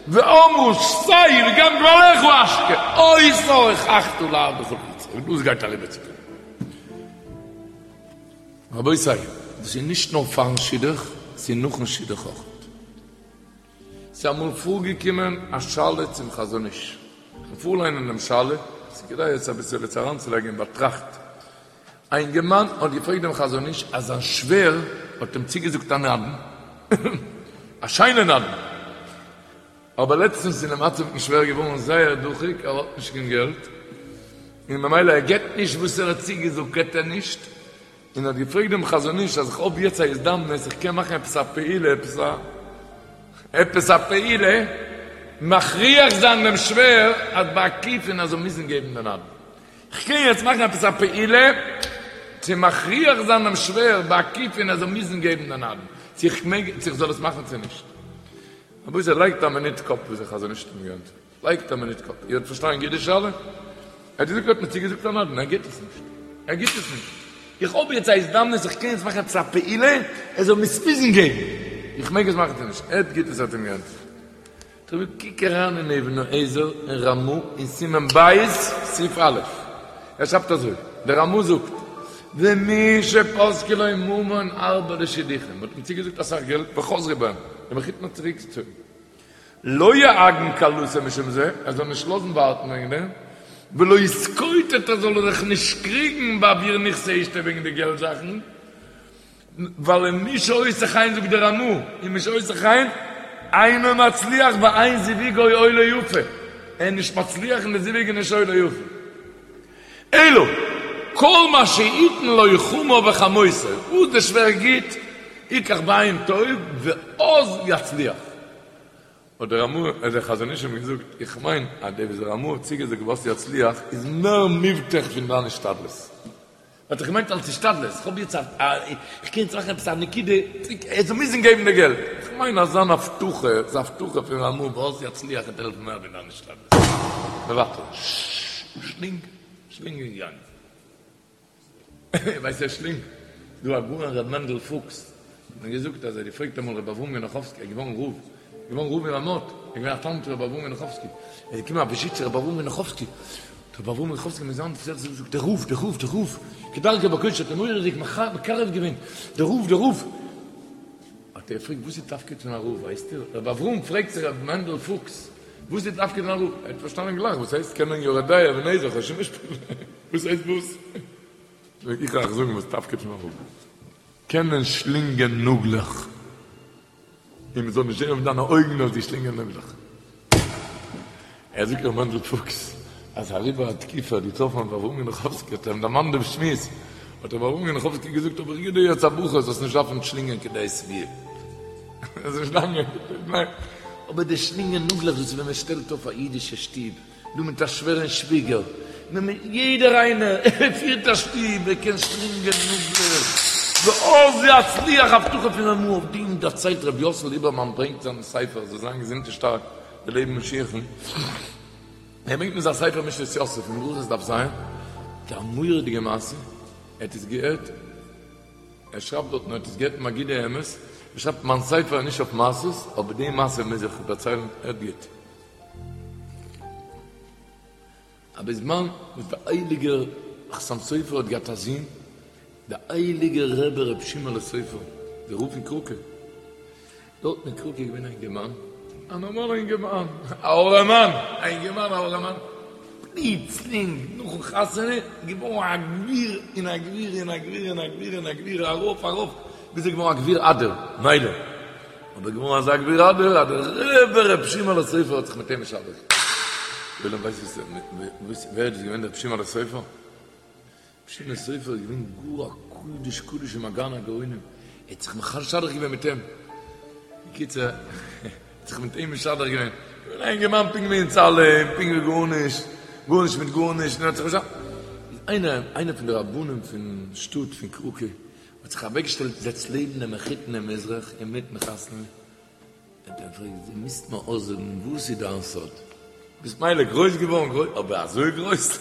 ואמרה שתה וגם גמליך אשקה, אותה הוכחת לעבדך ליצחק, און דאס גייט אריבער צו קינדער. רבותי, דאס איז נישט נאר פארן שידוך, ס'איז נאכן שידוך אויך. ס'איז אמאל פארגעקומען א שאלה צום חזון איש, כ'וועל פארליינען דעם שאלה, ס'איז כדאי עס אביסעלע צו אריינצולייגן אין באטראכט. א אינגערמאן האט געפרעגט דעם חזון איש אז זיין שווער האט אים צוגעזאגט א נדן, א שיינע נדן, אבער לעצטנס איז די מצב מיטן שווער געווארן זייער דוחק, ער האט נישט קיין געלט, און ממילא ער געבט נישט וואס ער האט צוגעזאגט געבט ער נישט, און האט געפרעגט דעם חזון איש אז איך האב יעצט א הזדמנות איך קען מאכן עפעס א פעולה עפעס א עפעס א פעולה מכריח זיין דעם שווער אז בעקיפין ער זאל מוזן געבן די נדן איך קען יעצט מאכן עפעס א פעולה צו מכריח זיין דעם שווער בעקיפין ער זאל מוזן געבן די נדן צו איך מעג צו איך זאל עס מאכן צו נישט רבותי לייגט א מינוט קאפ וואס דער חזון איש האט אים געענטפערט. לייגט א מינוט קאפ, איר האט פארשטאנען גוט די שאלה? ער האט געזאגט ער האט מיר צוגעזאגט א נדן, ער גיבט עס נישט, ער גיבט עס נישט, איך האב יעצט א הזדמנות איך קען יעצט מאכן עפעס א פעולה ער זאל מיר עס מוזן געבן, איך מעג עס מאכן צו נישט? הערט גוט וואס ער האט אים געענטפערט, טא קוק אריין אין אבן העזר אין רמא אין סימן ב' סעיף א', ער שרייבט אזוי, דער רמא זאגט, ומי שפסקו לו ממון הרבה לשידוכים, מען האט אים צוגעזאגט אסאך געלט וחזרו בהם, דער מחותן האט צוריקגעצויגן. לא יעגן כלתו משום זה, ער זאל נישט לאזן ווארטן וועגן דעם, ולא יתקוטט ער זאל זיך נישט קריגן בעבור נכסי אשתו וועגן די געלט זאכן, ווייל ומי שעושה כן זאגט דער רמא, ומי שעושה כן אינו מצליח ואין זיווגו עולה יפה, ער איז נישט מצליח און די זיווג איז נישט עולה יפה. אלא כל מה שיתן לו חמיו וחמותו, וואס דער שווער גיט, יקח בעין טוב ואז יצליח. האט דער רמא, האט דער חזון איש אים געזאגט, איך מיין אז דער וואס דער רמא האט צוגעזאגט ואז יצליח איז מער מובטח פון דיין השתדלות. האט ער געמיינט אלס השתדלות, איך האב יעצט א, איך קען יעצט מאכן עפעס א נקודה, ער זאל מוזן געבן די געלט. איך מיין אז זיין הבטחה, זיין הבטחה פון רמא ואז יצליח וועט העלפן מער ווי דיין השתדלות. מוותר. שלינג, שלינג און גאנג. ווייסט ווער שלינג? דא הגאון ר' מענדל פוקס האט מיר געזאגט אז ער האט געפרעגט אמאל ר' אברהם גענאכאווסקי, ער איז געווארן רב, געווארן רב אין רמות, ער איז געווען א תלמיד פון ר' אברהם גענאכאווסקי, ער איז געקומען א וויזיט צו ר' אברהם גענאכאווסקי, האט ר' אברהם גענאכאווסקי מיט זיין זעלבסט געזאגט, דער רב, דער רב, דער רב, כדרכו בקודש האט אים מורא'דיג מקרב געווען, דער רב, דער רב. האט ער געפרעגט וואס איז תפקיד פון א רב ווייסט איר? ר' אברהם פרעגט צו ר' מענדל פוקס וואס איז תפקיד פון א רב? ער האט פארשטאנען גלייך וואס הייסט קענען יורה דעה אבן העזר חושן משפט וואס הייסט וואס? איך וועל אייך זאגן וואס תפקיד פון א רב קענען שלינגען נאגלעך און מען זאל נישט זען אויף דיינע אויגן אז דו שלינגען נאגלעך. ער זאגט ר' מענדל פוקס אז אריבער א תקופה האט געטראפן ר' אברהם גענאכאווסקי האט ער אים דערמאנט דעם שמועס האט ר' אברהם גענאכאווסקי געזאגט אבער איך גיב דיר יעצט א ברכה זאלסט נישט דארפן שלינגען כדי שביעה אבער די שלינגען נאגלעך דאס איז ווען מען שטעלט אויף א אידישע שטוב דא מיט א שווער און שוויגער, יעדער איינער ער פירט א שטוב, ער קען שלינגען נאגלעך, ואז יצליח הבטחה פון רמא אויף דעם דערציילט רבי יוסל ליבערמאן ברענגט זיין ספר זאל זיין געזונט און שטארק די לעבן משיח'ן, ער ברענגט אין זיין ספר משנת יוסף אין ברכות דף ז, א מורא'דיגע מעשה, ער האט עס געהערט, ער שרייבט דארטן ער האט עס געהערט מגידי אמת, ער שרייבט מיין ספר איז נישט אויף מעשות, אבער די מעשה מוז איך דערציילן, הערט גוט. א בזמן וואס דער הייליגער חתם סופר האט געהאט א זון, דער הייליגער רבי ר' שמעון'לע סופר, דער רב פון קראקע, דארטן אין קראקע איז געווען א אינגערמאן, א נארמאלער אינגערמאן, א ארעמאן, א אינגערמאן א ארעמאן, פלוצלינג נאכן חתונה געווארן א גביר און א גביר און א גביר און א גביר און א גביר, ארויף ארויף, ביז ער איז געווארן א גביר אדיר, מילא. אבער געווארן אזא גביר אדיר אז דער רבי ר' שמעון'לע סופר האט זיך מיט אים משדך געווען. ווער איז דאס געווען דער ר' שמעון'לע סופר? ר' שמעון סופר איז געווען גאר א קדוש קדושים א גאון הגאונים, ער האט זיך משדך געווען מיט אים, בקיצור, ער האט זיך מיט אים משדך געווען, געווען א אינגערמאן פונקט ווי אונז אלע, פונקט ווי גארנישט, גארנישט מיט גארנישט, און ער האט זיך משדך, איז איינער, איינער פון די רבנים פון שטאט פון קראקע, האט זיך אוועקגעשטעלט זעצט לעבן דעם מחותן דעם מזרח אינמיטן חתונה, האט ער געפרעגט, דו מוזט מיר אויסזאגן וואס איז דיין סוד? ביסט מילא גרויס געווארן גרויס, אבער אזוי גרויס?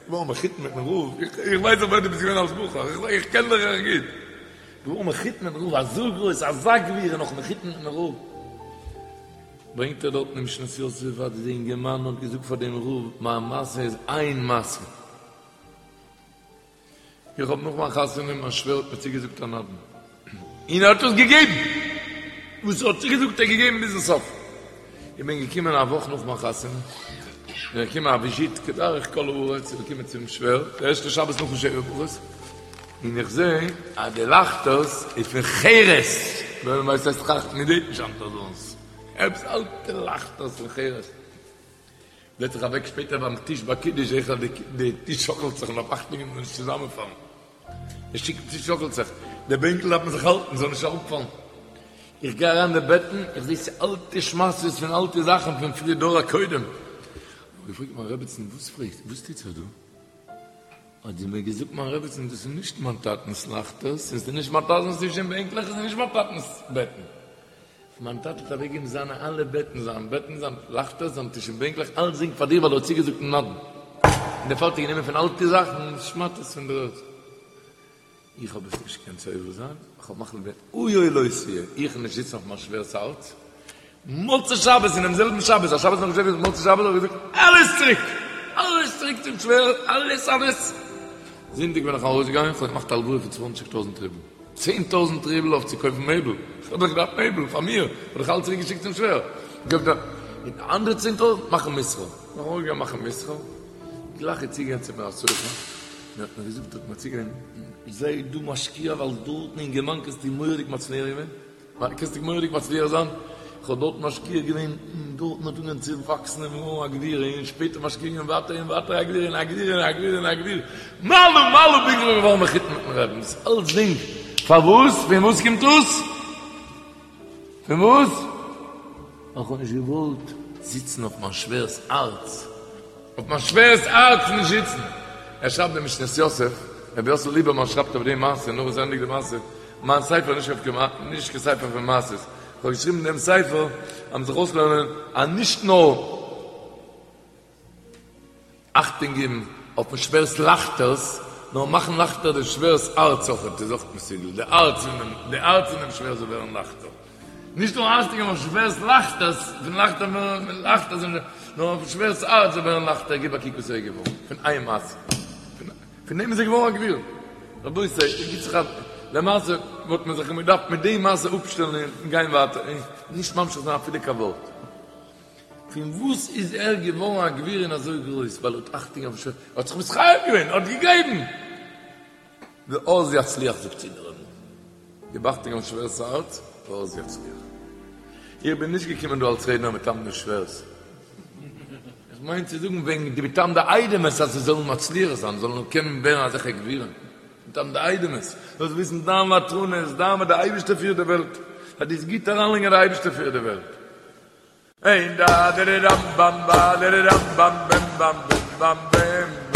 געווארן מחותן מיטן רב, איך ווייס דאך ווער דו ביסט געווען אלס בחור, איך קען דיך דאך גוט. געווארן מחותן מיטן רב, אזוי גרויס, אזא גביר און נאך מחותן מיטן רב. ברענגט ער דארטן אין משנת יוסף אז די אינגערמאן האט געזאגט פאר דעם רב, מיין מעשה איז איין מעשה. איך האב נאך מיין חתונה, מיין שווער האט מיר צוגעזאגט א נדן, און ער האט עס געגעבן! וואס ער האט צוגעזאגט האט ער געגעבן ביזן סוף. איך בין געקומען א וואך נאך מיין חתונה, בין איך געקומען א וויזיט כדרך כל הארץ, איך בין געקומען צום שווער, די ערשטע שבת נאכן שבע ברכות, און איך זע אז די לייכטערס איז פון חרס, ווער ווייסט וואס הייסט חרס, מען זעט נישט היינט אזאנס, עפעס אלטע לייכטערס פון חרס. זעץ זיך אוועק שפעטער ביים טיש ביי קידוש זעה איך אז די טיש שאקלט זיך מ'דארף אכטונג געבן זאל נישט צוזאמענפאלן, די טיש שאקלט זיך, די בענקל דארף מען זיך האלטן זאל נישט אראפפאלן, איך גיי אריין אין די בעטן איך זעה ס'אלטע שמאטעס פון אלטע זאכן פון פריער דור הקודם, האב איך געפרעגט מיין רעבעצן וואס פרעגסט וואס טוט זיך דא? האט זי מיר געזאגט מיין רעבעצן דאס איז נישט מיין טאטנס לייכטערס און ס'איז נישט מיין טאטנס טיש און בענקלעך און ס'איז נישט מיין טאטנס בעטן. מיין טאטע האט אוועקגעגעבן זיינע אלע בעטן, זיין בעטן, זיין לייכטערס, זיין טיש און בענקלעך, אלצדינג פאר דיר ווייל ער האט צוגעזאגט נדן. און דערפאר האט ער גענומען פון אלטע זאכן שמאטעס פון דער ערד. איך האב עס נישט געקענט סובל זיין, איך האב מחליט געווען היה לא תהיה, איך וועל נישט זיצן אויף מיין שווער'ס הארץ. מוצאי שבת, אינעם זעלבן שבת, א שבת נאכן שבע ברכות, מוצאי שבת האב איך געזאגט, אלעס צוריק! אלעס צוריק צום שווער, אלעס אלעס! זונטאג בין איך ארויסגעגאנגען, איך האב געמאכט א הלוואה פון צוואנציג טויזנט רובל. 10,000 רובל אויף צו קויפן מעבל, איך האב דאך געדארפט מעבל פאר מיר, האב איך אלץ צוריק געשיקט צום שווער, געב דא, און די אנדערע 10,000 מאכן מסחר, נאך אנגעגאנגען מאכן מסחר, גלייך איז צוגעגאנגען צו מיר א סוחר, און האט מיר געזאגט, האט מיר צוגעגאנגען, זיי דא משקיע ווייל דארטן אין גערמאן קענסטו מורא'דיג מצליח געווען, קענסטו מורא'דיג מצליח זיין, איך האב דארט משקיע געווען, און דארטן האט אנגעהויבן צו וואקסן און געווארן א גביר, און שפעטער משקיע געווען ווייטער און ווייטער א גביר און א גביר און א גביר און א גביר, מעלה מעלה ביז כ'בין געווארן מחותן מיטן רעבן, דאס אלצדינג פארוואס? פון וואס קומט דאס? פון וואס? ווייל כ'האב נישט געוואלט זיצן אויף מיין שווער'ס הארץ, אויף מיין שווער'ס הארץ נישט זיצן. ער שרייבט דער משנת יוסף, רבי יוסל ליבערמאן שרייבט אויף די מעשה, נאך וואס ער ענדיגט די מעשה, מיין ספר איז נישט קיין ספר פון מעשות, כ'האב געשריבן דעם ספר אז מ'זאל זיך אויסלערנען אז נישט נאר אכטונג געבן אויפן שווער'ס לייכטערס, נאר מאכן לייכטער דעם שווער'ס הארץ אויכעט איז אויך מסוגל, די הארץ פון די הארץ פונעם שווער זאל ווערן לייכטער. נישט נאר אכטונג געבן אויפן שווער'ס לייכטערס, פון לייכטער ווערן לייכטער, נאר אויפן שווער'ס הארץ זאל ווערן לייכטער, גיב א קוק וואס ער איז געווארן פון איין מעשה. פון דעם איז ער געווארן א גביר. רבותי, גיט זיך א, למעשה וואלט מען זיך געדארפט מיט די מעשה אפשטעלן און גיין ווייטער, און נישט ממשיך זיין אפילו קיין ווארט. פון וואס איז ער געווארן א גביר און אזוי גרויס? ווייל ער האט אכטונג אויפן שווער, ער האט זיך מתחייב געווען, ער האט געגעבן. ואז יצליח זאגט צו דער רמ"א, גיב אכטונג אויפן שווער'ס הארץ, ואז יצליח. איך בין נישט געקומען דא אלס רעדנער מטעם די שווערס. איך מיין צו זאגן וועגן די מטעם די איידעמעס אז זיי זאלן מצליח זיין, זאלן קענען ווערן אזעלכע גבירים. מטעם די איידעמעס, זאלסט וויסן דיין ותרנות, דיין וואס די אייבערשטער פירט די וועלט, אז דו'סט גוט אריינלייגן אז די אייבערשטער פירט די וועלט. אין דא דער רם באם בא דער רם באם בם באם בם באם בם באם.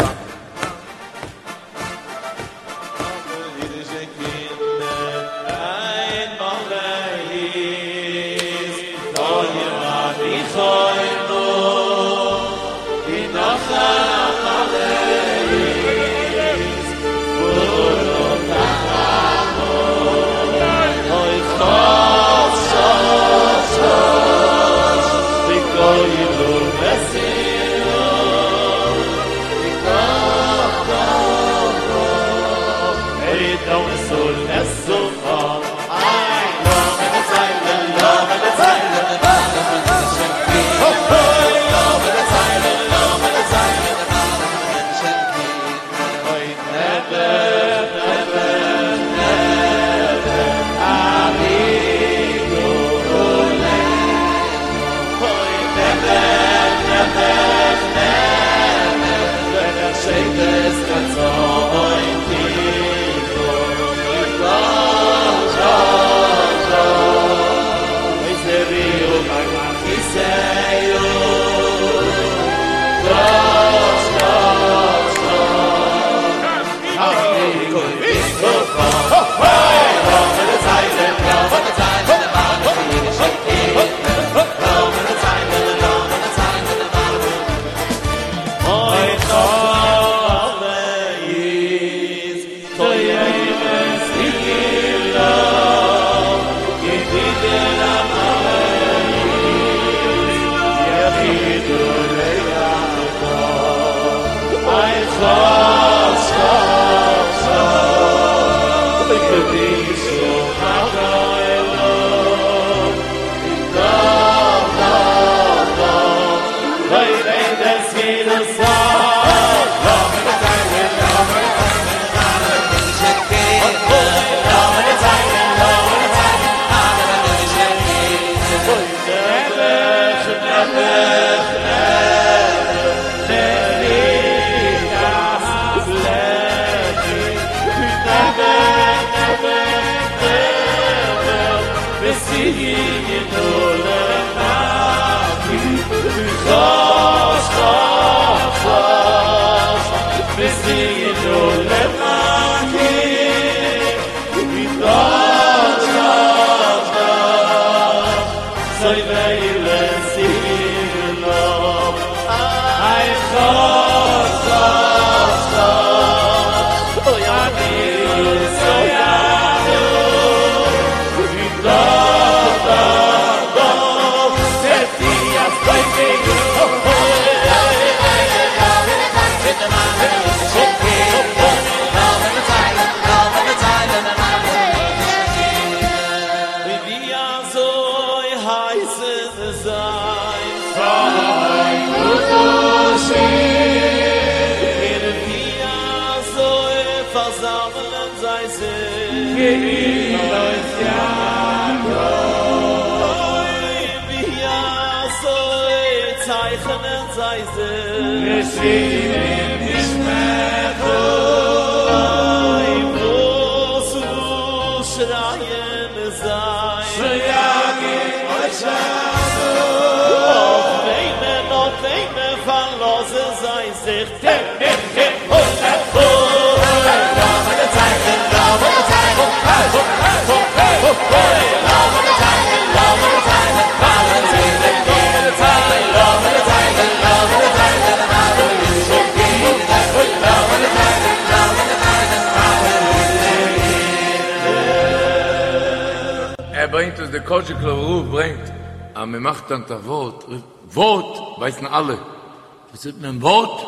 ער ברענגט וואס דער קאזשיגלאווער רב ברענגט אז מען מאכט היינט א ווארט, ווארט ווייסן אלע, וואס זאגט מען ווארט?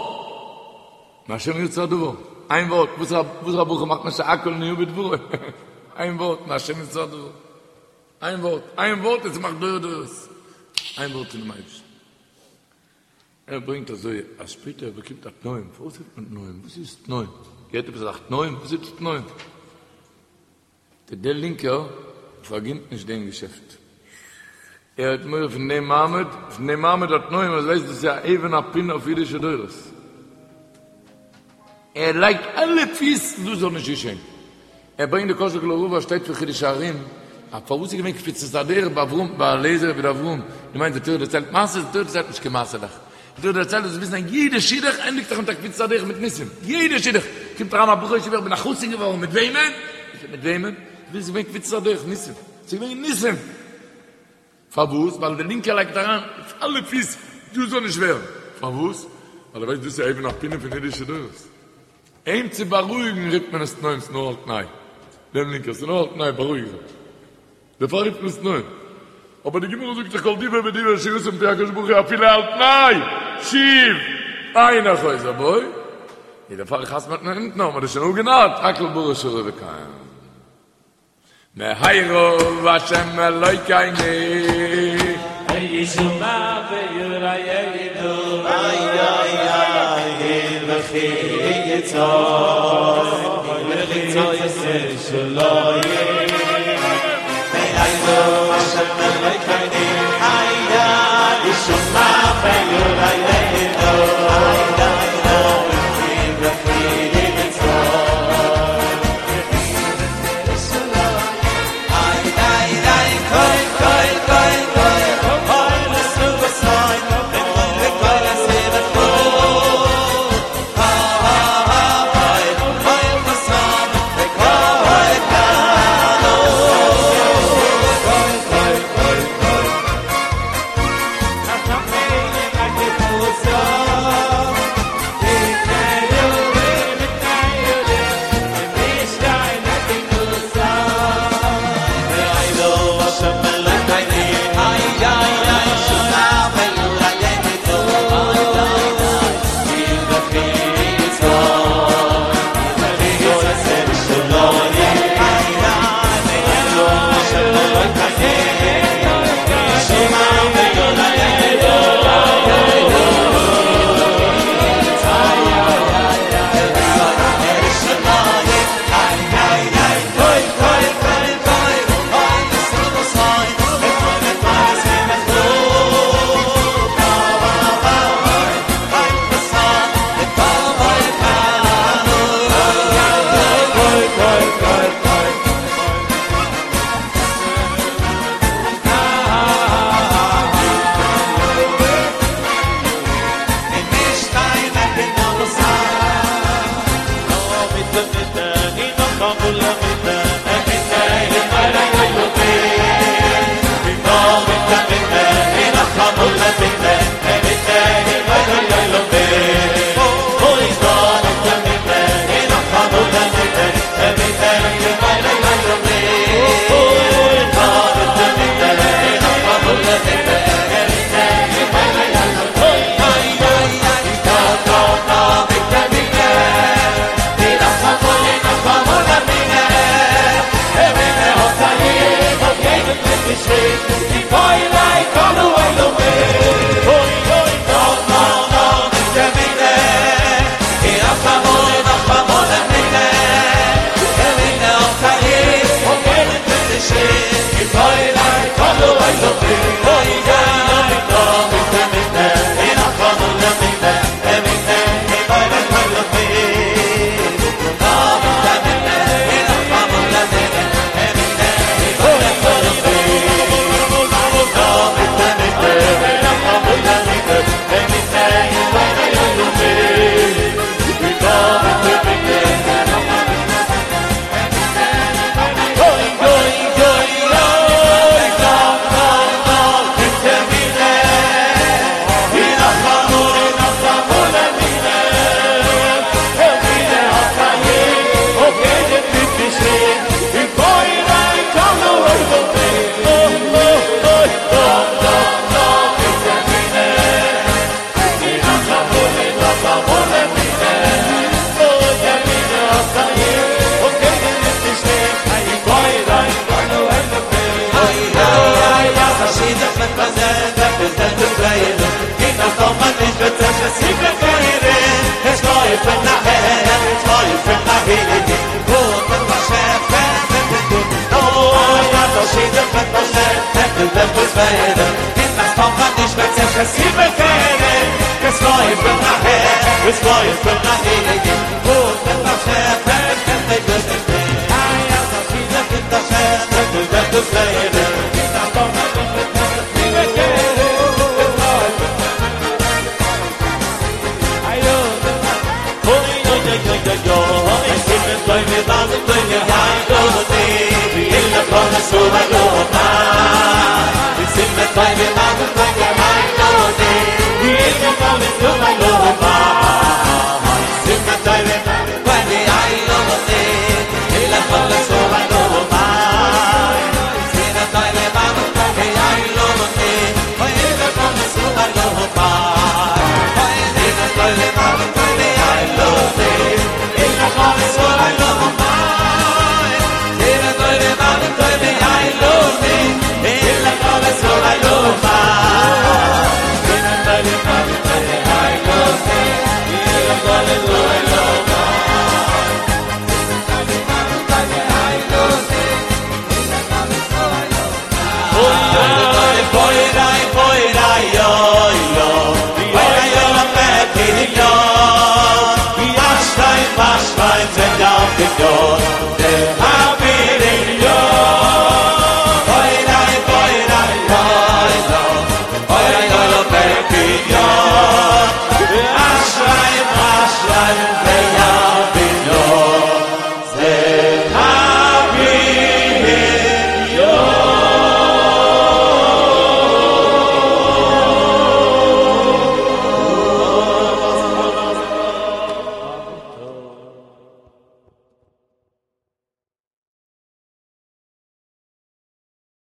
מהשם יצא הדבר, איין ווארט, וואס א ברכה מאכט מען שהכל נהיה בדברו, איין ווארט, מהשם יצא הדבר, איין ווארט, איין ווארט עס מאכט דורי דורות, איין ווארט פונעם אייבערשטן. ער ברענגט אזוי אז שפעטער ער באקומט א תנאים, פארוואס רופט מען תנאים? וואס איז תנאים? געהערט עפעס אזאך תנאים? וואס איז תנאים? דער לינקער פארגינט נישט דעם געשעפט, ער האט מורא פון דעם מעמד, פון דעם מעמד התנאים, אז ווייסט דאס איז א אבן הפינה אויף אידישע דורות, ער לייגט אלע פיס דאס זאל נישט געשען, ער ברענגט די קאזשיגלאווער רב אז שטייט פון חידושי הרי"ם, אז פארוואס איז געווען קפיצת הדרך ביי אברהם ביי אליעזר עבד אברהם, דו מיינסט די תורה דערציילט מעשיות? די תורה דערציילט נישט קיין מעשה'לעך, די תורה דערציילט זאלסט וויסן אז יעדע שידוך ענדיגט זיך מיט א קפיצת הדרך מיט ניסים, יעדע שידוך, קומט אריין א בחור אין ישיבה איך בין א חתן געווארן, מיט וועמען? מיט וועמען? ס'איז געווען קפיצת הדרך, ניסים, ס'איז געווען ניסים! פארוואס? ווייל די לינקע לייגט אריין אלע פיס דאס זאל נישט ווערן, פארוואס? ווייל ער ווייסט דאס איז אבן הפינה פון אידישע דורות, אים צו בארואיגן רופט מען עס תנאים, ס'נאר על תנאי, דעם לינקער, ס'נאר על תנאי, בארואיג זיך, דערפאר רופט מען עס תנאים, אבער די גמרא זאגט דאך כל דיבור ודיבור שיצא מפי הקדוש ברוך הוא אפילו על תנאי, שוב אינו חוזר בו, איז דערפאר חתמ'עט מען אונטן האט מען דאס שוין אפגענארט, הכל ברא שרוי וקיים. מהרה השם אלוקינו. ישמע וירא ידע. איי איי איי וכי יצא וכי יצא שלא מהרה השם אלוקינו איי איי ישמע וירא ידע איי איי איי וכי יצא